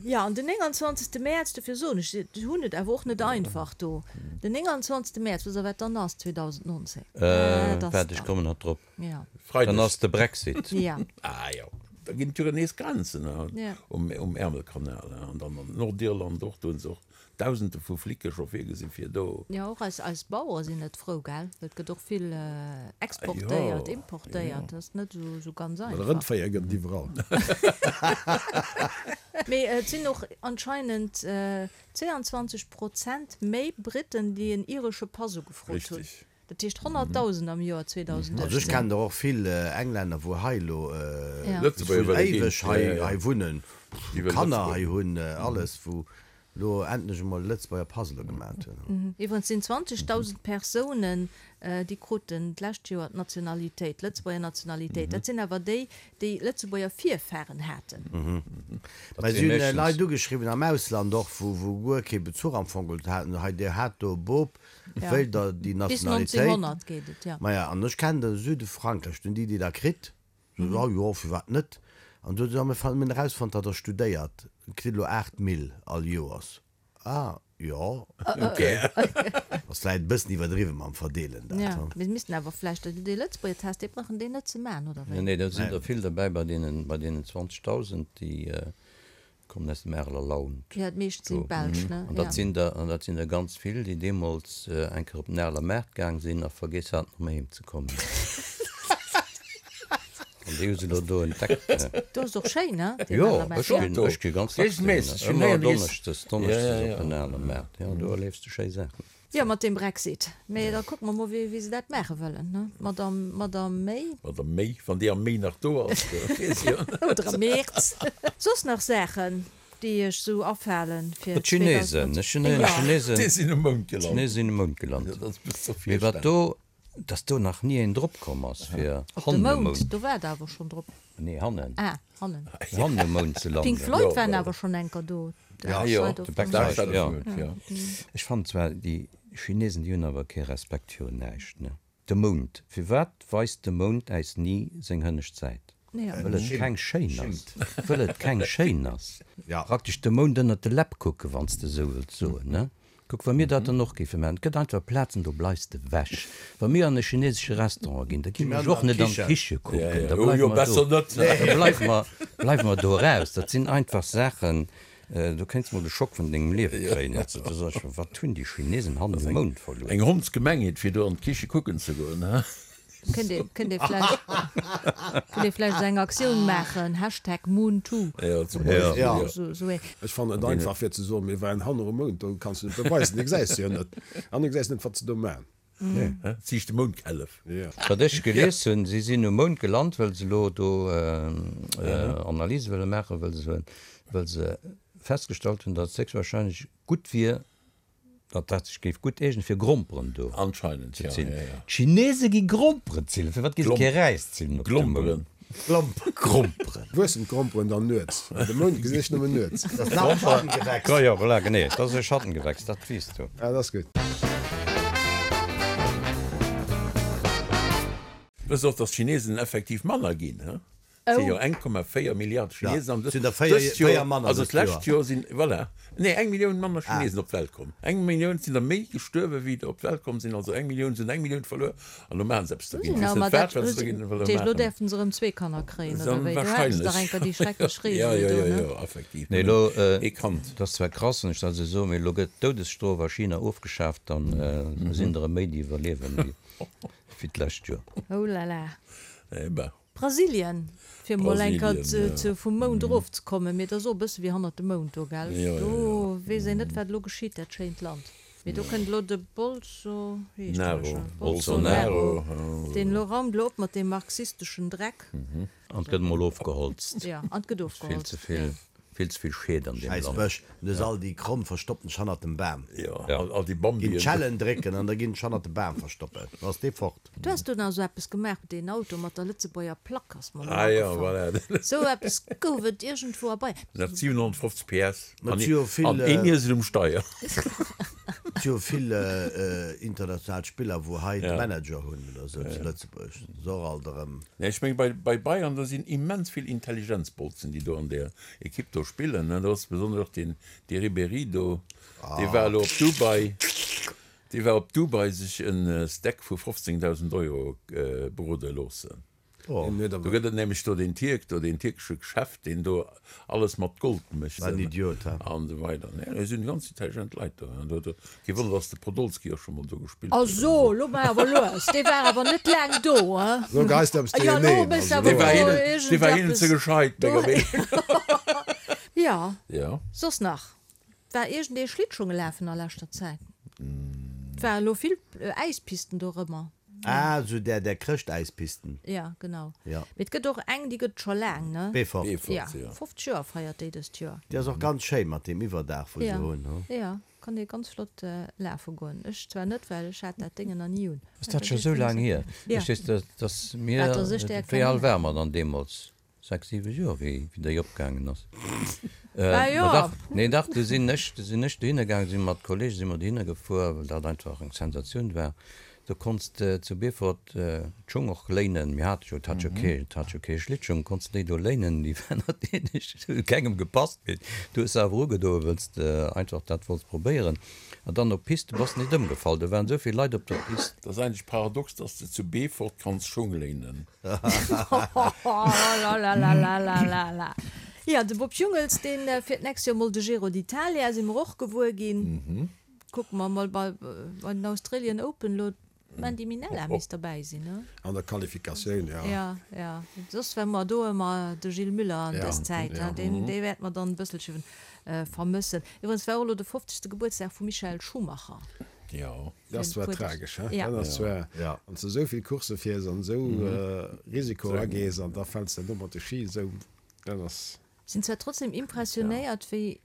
Speaker 1: Jo, an den 29. Mäerz, dofir soen ech, si hunn et awer och net einfach do, den 29. Mäerz, wësst Der, wat dann ass 2019? Dat ass
Speaker 2: Waart, ech
Speaker 1: dann.
Speaker 2: kommen nach drop.
Speaker 1: Jo.
Speaker 2: Dann ass de Brexit.
Speaker 1: Jo.
Speaker 3: Ah jo, da ginn et jo nees Grenzen
Speaker 1: Jo.
Speaker 3: um Ärmelkanal an dann an Nordirland och, do hunn se och Dausende vu Flicke scho virgesinn, fir do.
Speaker 1: Jo, och eis, eis Bauere sinn net frou, gell? Well et gëtt och vill exportéiert, importéiert, dat ass net esou, esou ganz
Speaker 5: Well
Speaker 1: einfach.
Speaker 5: Rëndféier gëtt et iwwerall.
Speaker 1: Mee et sinn och anscheinend 22 Prozent méi Britten, déi en iresche Pass ugefrot hunn.
Speaker 3: Richtig.
Speaker 1: Dat heescht 100.000 am Joer 2018.
Speaker 4: Also ech kennen der och vill Englänner wou hei elo vun éiweg hei wunnen, wou Kanner hei hunn, alles, wou elo endlech emol e Lëtzebuerger Pass elo gemat hunn.
Speaker 1: Iwwregens sinn 20.000 Persounen, déi kruten d'lescht Joer d'Nationalitéit, d'Lëtzebuerger Nationalitéit. Dat sinn awer déi, déi Lëtzebuerger Virfaren haten.
Speaker 4: Mä si hunn Leit ugeschriwwen am Ausland och, wou guer kee Bezuch am Fong geholl haten, hei dir hat do e Bop, wéilt der déi
Speaker 1: Bis
Speaker 4: Nationalitéit?
Speaker 1: 1900 geet et, jo.
Speaker 4: Maja, an ech kennen de Süde Frankräich, do hunn déi déi da kritt, sot, oh jo, firwat net? An du huet se, mir hunn erausfonnt, datt der studéiert, kritt elo 8 Mille all Joers. Ah, jo, ok. Ass vläicht e bëssen iwwerdriwwen mam Verdeelen dat,
Speaker 1: Jo, mir missten awer vläicht dee Lëtzebuerger Test, dee brauchen déi net ze maachen, oder wéi?
Speaker 2: Nee, do sinn der vill derbäi bei deenen, bei deenen 20.000, déi Kommen aus dem Areler Land.
Speaker 1: Jo, d'meescht sinn Belsch, ne?
Speaker 2: An dat sinn der, an dat sinn der ganz vill, déi deemools eng Kéier op den Areler Maart gaang sinn a vergiess haten, erëm heem ze kommen. An déi hu se elo do entdeckt.
Speaker 1: Do ass och schéin, ne?
Speaker 2: Deen Areler Maart. Jo, ech ginn, ech gi ganz dacks dohinner. Ëmmer donneschdes, donneschdes op den Areler Maart. Jo, do erliefs de schéi Saachen.
Speaker 1: Jo, mat deem Brexit. Mee da kucke mer mol, wéi se dat maache wëllen, ne? D'Madame, Madame May.
Speaker 3: Madame May, wann déi am Mee nach do ass, da weess ech jo net.
Speaker 1: Oder am Mäerz. Soss nach Saachen, déi iech esou afalen fir
Speaker 2: D'Chinesen,
Speaker 1: 2019?
Speaker 2: ech hunn héieren, d'Chinesen.
Speaker 3: Déi sinn um Mound gelant.
Speaker 2: D'Chinesen sinn um Mound gelant.
Speaker 3: Dat ass bis zur
Speaker 2: Mee wat
Speaker 3: Virstellung.
Speaker 2: do, dass do nach ni een drop komm ass, fir
Speaker 1: Op de
Speaker 2: hannen um
Speaker 1: Mound,
Speaker 2: Mound.
Speaker 1: do war et awer schonn drop.
Speaker 2: Nee, hannen.
Speaker 1: Ah, hannen.
Speaker 2: Hannen um Mound ze landen.
Speaker 1: Pink Floyd waren awer schonn enker do.
Speaker 2: Ja,
Speaker 3: jo,
Speaker 2: de Dark Side of the Moon, jo. Ech fannen zwar, déi Chinesen, déi hunn awer kee Respekt virun näischt, ne? De Mound, firwat weist de Mound äis ni seng hënnescht Säit? Wëll et keng schéin ass. Wëll et keng schéin ass. Praktesch de Mound ënnert de Läpp kucken, wann s de esou wëlls soen, ne? Kuck, wa mir dat dann och géife maachen, et gëtt einfach Plazen, do bleifs de ewech. Wa mir an e chinesesche Restaurant ginn, da ginn ech och net an d'Kiche kucken, da bleiwe mer do, da bleiwe mer, bleiwe mer do eraus. Dat sinn einfach Saachen, do kéints mol de Schock vun dengem Liewe kréien. Du soss, wat hunn déi Chinesen hannen um Mound verluer?
Speaker 3: Eng Hondsgemengheet, fir do an d'Kiche kucken ze goen, he?
Speaker 1: Kënnt ee, kënnt ee vläicht, kënnt ee vläicht esou eng Aktioun maachen, Hashtag MoonToo
Speaker 3: Ja, zum Beispill,
Speaker 1: oder
Speaker 3: jo.
Speaker 1: sou, sou ee.
Speaker 5: Ech fannen et einfach fir ze soen, mir waren hanner um Mound, do kanns du net beweisen, dee gesäis de jo net an du gesäis net wat se do man.
Speaker 3: Hä? Siicht de Moundkällef.
Speaker 5: Jo.
Speaker 2: Wat ech gelies hunn, si sinn um Mound gelant, wëll se elo do Analyse wëlle maachen, wëll se, wëll se festgestallt hunn, datt et héchstwahrscheinlech gutt wier, datt dat sech géif gutt eegnen fir Gromperen do
Speaker 3: Anscheinend,
Speaker 2: ze
Speaker 3: ja,
Speaker 2: zillen.
Speaker 3: ja, ja.
Speaker 2: D'Chinese gi Gromperen zillen, firwat gi se kee Räis zillen op dem Mound?
Speaker 3: Glomperen.
Speaker 2: Gromperen.
Speaker 5: Wuessen d'Gromperen dann nuets? Well de Mound gesinn ech nëmmen nuets.
Speaker 4: Dat ass nach e Schattengewächs.
Speaker 2: Jo, jo, voilà, genee, dat ass e Schattengewächs, dat weess du.
Speaker 5: Ah, dat ass gutt.
Speaker 3: Wësst och, datt d'Chinesen effektiv manner ginn, he? Et si jo 1,4 Milliarde Chinesen an
Speaker 4: Sinn der 4
Speaker 3: dëst Joer,
Speaker 4: manner
Speaker 3: also
Speaker 4: dëst
Speaker 3: d'lescht
Speaker 4: Joer.
Speaker 3: Joer sinn, voilà, nee eng Millioun manner Chinesen op d'Welt komm. Eng Millioun sinn der méi gestuerwe wéi der op d'Welt komm sinn, also eng Millioun sinn eng Millioun verluer an elo maache se eppes dergéint. Ech weess net wat, wat se dergéint wëlle
Speaker 1: Elo
Speaker 3: maachen.
Speaker 1: däerfen se erëm zwee Kanner kréien, oder wéi? Du hates dach enker déi schrecklech
Speaker 3: Jo,
Speaker 1: Reegel
Speaker 3: jo,
Speaker 1: do,
Speaker 3: jo,
Speaker 1: ne?
Speaker 3: jo, effektiv,
Speaker 2: Nee, elo,
Speaker 3: nëmmen ee Kand.
Speaker 2: dat ass zwar krass, wann ech dat esou soen, mee elo gëtt d'Doudesstrof a China ofgeschaaft, dann sinn der erëm méi déi iwwerliewen wéi d'lescht Joer.
Speaker 1: Oh là là.
Speaker 3: Eh ben.
Speaker 1: Brasilien, fir mol eng Kéier
Speaker 3: Brasilien, ja.
Speaker 1: vum Mound erof ze kommen, mee et ass och e bësse wéi hannert dem Mound do, gell?
Speaker 3: Jo, jo,
Speaker 1: Do
Speaker 3: jo.
Speaker 1: weess een net, wat elo geschitt, dat schéint Land. Mee do kënnt elo de Bolso, wéi heescht deen
Speaker 3: Naro.
Speaker 1: scho?
Speaker 3: Bolsonaro,
Speaker 1: Bolsonaro, deen elo raumt elo op mat deem marxisteschen Dreck.
Speaker 2: An et gëtt emol ofgeholzt.
Speaker 1: Jo, an et gëtt
Speaker 2: Vill
Speaker 1: ofgeholzt,
Speaker 2: ze vill,
Speaker 1: jo.
Speaker 2: vill ze vill Schied an deem
Speaker 4: Schäiss
Speaker 2: Land.
Speaker 4: Bësch, du hues all déi Kromm verstoppen dech hannert dem Bam.
Speaker 3: Jo, all, all déi
Speaker 4: Ginn
Speaker 3: Bambien.
Speaker 4: d'Schellen drécken an da ginn dech hannert de Bam verstoppen, da ass dee fort.
Speaker 1: Du has do nach esou eppes gemaach, deen Auto mat der Lëtzebuerger Plack ass mer elo
Speaker 3: Ah jo,
Speaker 1: agefall.
Speaker 3: voilà.
Speaker 1: Esou eppes gouf et iergendwou a Bayern.
Speaker 3: Nach 750 PS
Speaker 4: Ma
Speaker 3: an
Speaker 4: et si jo vill,
Speaker 3: an een Iesel um Steier.
Speaker 4: Et si jo vill international Spiller, wou hei de
Speaker 3: Ja.
Speaker 4: Manager hunn oder esou zu Lëtzebuerg. Dat ass och alt erëm.
Speaker 3: Nee, ech meng bei, bei Bayern, do sinn immens vill Intelligenzbolzen, déi do an där Ekipp do spillen, ne. Do ass besonnesch och deen, dee Ribéry do, dee war elo op Dubai. Dee war op Dubai sech en Steak vu 15.000 Euro brode loossen. Do gëtt et nämlech do deen Tierk do, deen tierkesche Chef, deen do alles mat Gold mécht
Speaker 4: Wat en Idiot, he?
Speaker 3: an esou weider. Nee, do sinn ganz intelligent Leit do. Do, do, kee Wonner, dass de Podolski och scho mol do gespillt
Speaker 1: A
Speaker 3: huet an
Speaker 1: so,
Speaker 3: esou.
Speaker 1: lo maach awer lues, dee war awer net laang do, he?
Speaker 5: Lo geist eppes
Speaker 1: Jo, lo
Speaker 5: duercherneen,
Speaker 1: méchs
Speaker 5: also
Speaker 1: awer
Speaker 3: Dee war
Speaker 1: do
Speaker 3: hinnen, dee war hinnen ze
Speaker 1: iergendeppes
Speaker 3: gescheit,
Speaker 1: do.
Speaker 3: menger Meenung no.
Speaker 1: Jo,
Speaker 3: Jo.
Speaker 1: soss nach? War iergendee Schlittschunge lafen a leschter Zäit? Et ware lo vill Äispisten dorëmmer.
Speaker 4: Ah, esou där, där Chrëschtäispisten.
Speaker 1: Ja, genau.
Speaker 4: Ja.
Speaker 1: Mee et gëtt och eng, déi gëtt et scho laang, ne?
Speaker 4: Beefort.
Speaker 3: Beefort,
Speaker 1: Ja,
Speaker 3: ja.
Speaker 1: 50 Joer feiert déi dëst Joer.
Speaker 4: Déi ass och ganz schéin mat deem Iwwerdaach, wou se
Speaker 1: Ja,
Speaker 4: hunn, hu?
Speaker 1: ja, kann ee ganz flott lafe goen. Ech zwar net, well ech hat dat Déngen nach ni un.
Speaker 2: Ass dat scho sou laang hier?
Speaker 1: Ja.
Speaker 2: Ech weess, dass mir,
Speaker 1: Wat, dass ech där
Speaker 2: wéi al
Speaker 1: kennen?
Speaker 2: ware mer dann deemools? 6, 7 Joer wéi déi opgaangen ass.
Speaker 1: Ah jo.
Speaker 2: Ma dach, nee dach, du sinn ech, du sinn ech dohinner gaangen, si mat Kollege si mer dohinner gefuer, well dat einfach eng Sensatioun war. Do konns de zu Beefort d'Schung och léinen, mir hate jo, et hat jo kee, et hat jo kee Schlittschung, konns de déi do léinen, déi waren natierlech, hu kengem gepasst, mee du hues se awer ugedoen, wëlls de einfach dat wollts probéieren. An dann op d'Pist, du bass nit ëmgefall, do waren esou vill Leit op der Pist.
Speaker 3: Dat ass eigentlech paradox, dass de zu Beefort kanns Schung léinen.
Speaker 1: Lalalalalalala. Jo, de Bob Jungels, deen fiert d'nächst Joer mol de Giro d'Italia, si mer och gewuer ginn. Kucke mer mol bei den Australian Open elo, d'Mandy Minella misst derbäi sinn, ne?
Speaker 5: An der Qualifikatioun, jo.
Speaker 1: Jo, jo. Soss war mer do ëmmer de Gilles Müller an dës Zäit, deen, dee wäerte mer dann e bësselche vermëssen. Iwwregens war och elo de 50. Gebuertsdag vum Michael Schumacher.
Speaker 3: Jo.
Speaker 5: Dat ass zwar tragesch, he? Dat ass zwar, wann s de esou vill Coursse fiers an esou Risiko agees an da fäls de do mat de Ski esou, dat ass.
Speaker 1: Sinn zwar trotzdem impressionéiert wéi,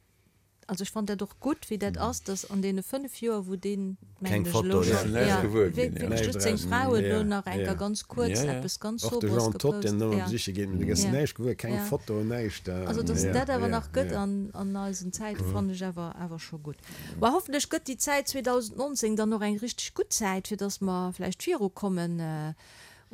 Speaker 1: also ech fannen dat och gutt wéi dat ass, dass an deene 5 Joer wou deen, mengen
Speaker 4: Keng
Speaker 1: ech elo
Speaker 4: Foto,
Speaker 1: schonn,
Speaker 4: ja.
Speaker 1: ja, wierklech just seng Fra huet elo nach eng Kéier ganz kuerz eppes ganz
Speaker 5: Och de
Speaker 1: Sobres
Speaker 5: Jean Todt,
Speaker 1: gepost,
Speaker 5: deen ëmmer
Speaker 1: ja.
Speaker 5: besiche geet, mee du gëss näischt gewuer, keng Foto, näischt.
Speaker 1: Also dass et dat awer nach gëtt an eisen Zäite fannen ech awer awer scho gutt. Ma hoffentlech gëtt déi Zäit 2019 dann och eng richteg gutt Zäit, fir dass mer vläicht virukommen.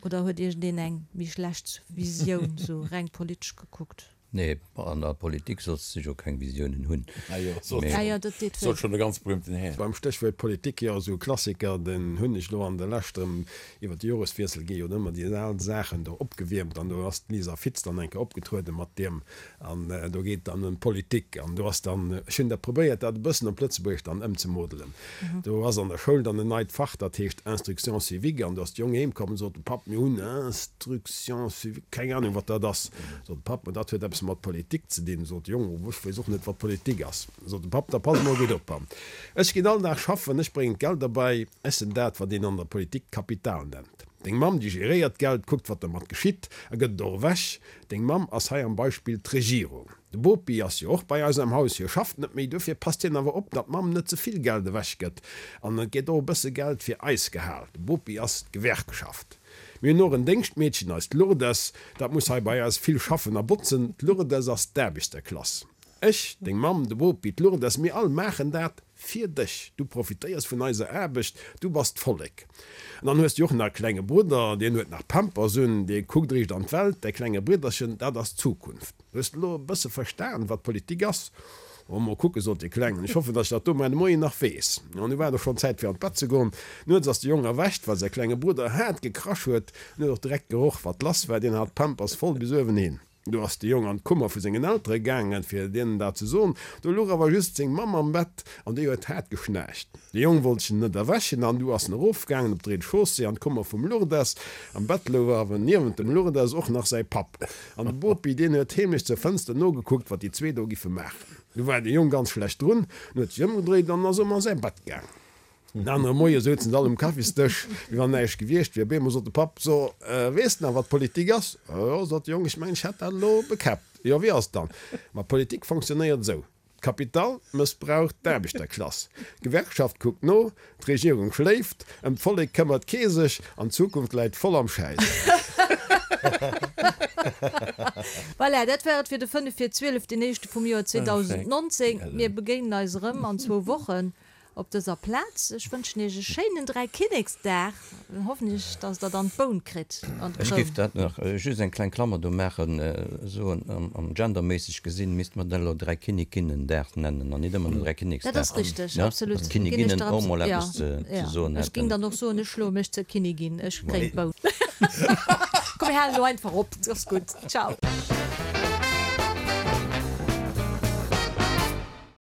Speaker 1: Oder huet iergendeen eng méi schlecht Visioun, sou reng politesch gekuckt?
Speaker 2: Nee, an der Politik solls de jo keng Visiounen hunn.
Speaker 3: Ah jo, sot
Speaker 1: Ah jo, dat deet wéi.
Speaker 3: sot schonn e ganz berühmten Här.
Speaker 5: Beim Stéchwuert Politik, jo, esou e Klassiker, den hunn ech elo an der Lescht erëm, iwwer de Joreswiessel gi jo ëmmer déi al Saachen do opgewiermt an do ass d'Lisa Fitz dann eng Kéier opgetrueden mat deem An do geet et dann ëm d'Politik. An do ass dann, ech hunn dat probéiert, dat e bëssen op Lëtzebuergesch dann ëmzemodelen. Do ass an der Schoul dann en neit Fach, dat heescht Instruction civique. An do ass de Jong heem komm an sot, Papp, mir hunn Instruction civique, keng Ahnung, wat dat ass. Sot de Papp, Ma dat huet eppes mat Politik ze dinn. Sot de Jong, Oh, ech weess och net, wat Politik ass. Sot de Papp, Da pass mol gutt op, ech ginn all Dag schaffen, ech bréngen d'Geld erbäi, ech sinn dat, wat een an der Politik Kapital nennt. Deng Mamm, déi geréiert d'Geld, kuckt, wat dermat geschitt a gëtt et och ewech. Deng Mamm ass hei am Beispill d'Regierung. De Bopi ass jo och bei eis am Haus, hie schafft net méi, dofir passt hien awer op, datt d'Mamm net ze vill Geld ewech gëtt an et gétt och e bësse Geld fir eis gehal. De Bopi ass d'Gewerkschaft. Mir hunn och en Déngschtmeedchen, eist Lourdes, dat muss hei bei eis vill schaffen a botzen. D'Lourdes ass d'Aarbechterklass. Ech, deng Mamm, de Bopi, d'Lourdes, mir all maachen dat fir dech. Du profitéiers vun eiser Aarbecht, du bass d'Vollek. An dann hues du och nach e klenge Brudder, deen huet nach Pampers un, dee kuckt riicht an d'Welt. Däi klenge Bridderchen, dat ass d'Zukunft. Hues de elo e bësse verstan, wat Politik ass? Oh, mol kucken, sot dee Klengen, ech hoffen, datt ech dat do muer de Moien nach weess. An du war et och schonn Zäit fir an d'Bett ze goen. Nuets ass de Jong erwächt, well säi klenge Brudder haart gekrasch huet. En huet och direkt geroch, wat lass war, deen hat d'Pampers voll bis uewenhin. Do ass de Jong an d'Kummer vu sengen Eltere gaangen, fir deenen dat ze soen. Do luch awer just seng Mamm am Bett an déi huet haart geschnaarcht. De Jong wollt se net erwächen an du ass en erofgaangen op d'Rez-de-chaussée an d'Kummer vum Lourdes. Am Bett louch awer niewent dem Lourdes och nach säi Papp. An de Bopi, deen huet heemlech zur Fënster nogekuckt, wat déi zwee do giffe maachen. Du war de Jong ganz schlecht drun, en huet sech ëmgedréit an ass ëm a säi Bett gaangen. Den anere Moie souzen se all um Kaffisdësch, wéi wann näischt gewiescht wier. Op eemol sot de Papp, So, weess de nach, wat Politik ass? Jo, sot de Jong, ech mengen, ech hätt dat elo bekäppt. Jo, wéi ass et dann? Ma Politik fonctionnéiert esou, D'Kapital mëssbraucht d'Aarbechterklass, d'Gewerkschaft kuckt no, d'Regierung schléift, ëm d'Vollek këmmert kee sech an d'Zukunft läit voll am Schäiss.
Speaker 1: Voilà, dat war et fir de 5 vir 12, deen éischte vum Joer 2019. Mir begéinen eis erëm an zwou Wochen. Op dëser Plaz, ech wënschen Iech e schéinen Dräikinneksdag an hoffentlech, dass Der dann d'Boun kritt an
Speaker 2: Ech
Speaker 1: d'Kroun.
Speaker 2: géif dat nach just eng kleng Klammer do maachen, soen, am genderméisseg gesinn, misste mer dat elo Dräikinnikinnendag nennen an nit ëmmer den Dräikinneksdag.
Speaker 1: Dat ass richteg,
Speaker 2: Ne?
Speaker 1: absolut.
Speaker 2: Dass
Speaker 1: Ginn ech
Speaker 2: d'Kinniginnen
Speaker 1: der
Speaker 2: och mol
Speaker 1: absolut,
Speaker 2: eppes
Speaker 1: ja,
Speaker 2: ze
Speaker 1: ja.
Speaker 2: soen
Speaker 1: Ech géing
Speaker 2: hätten.
Speaker 1: dann och soen, ech schloe mech zur Kinnigin, ech kréien d'Boun. Komm, mir halen elo einfach op, et ass gutt. Ciao.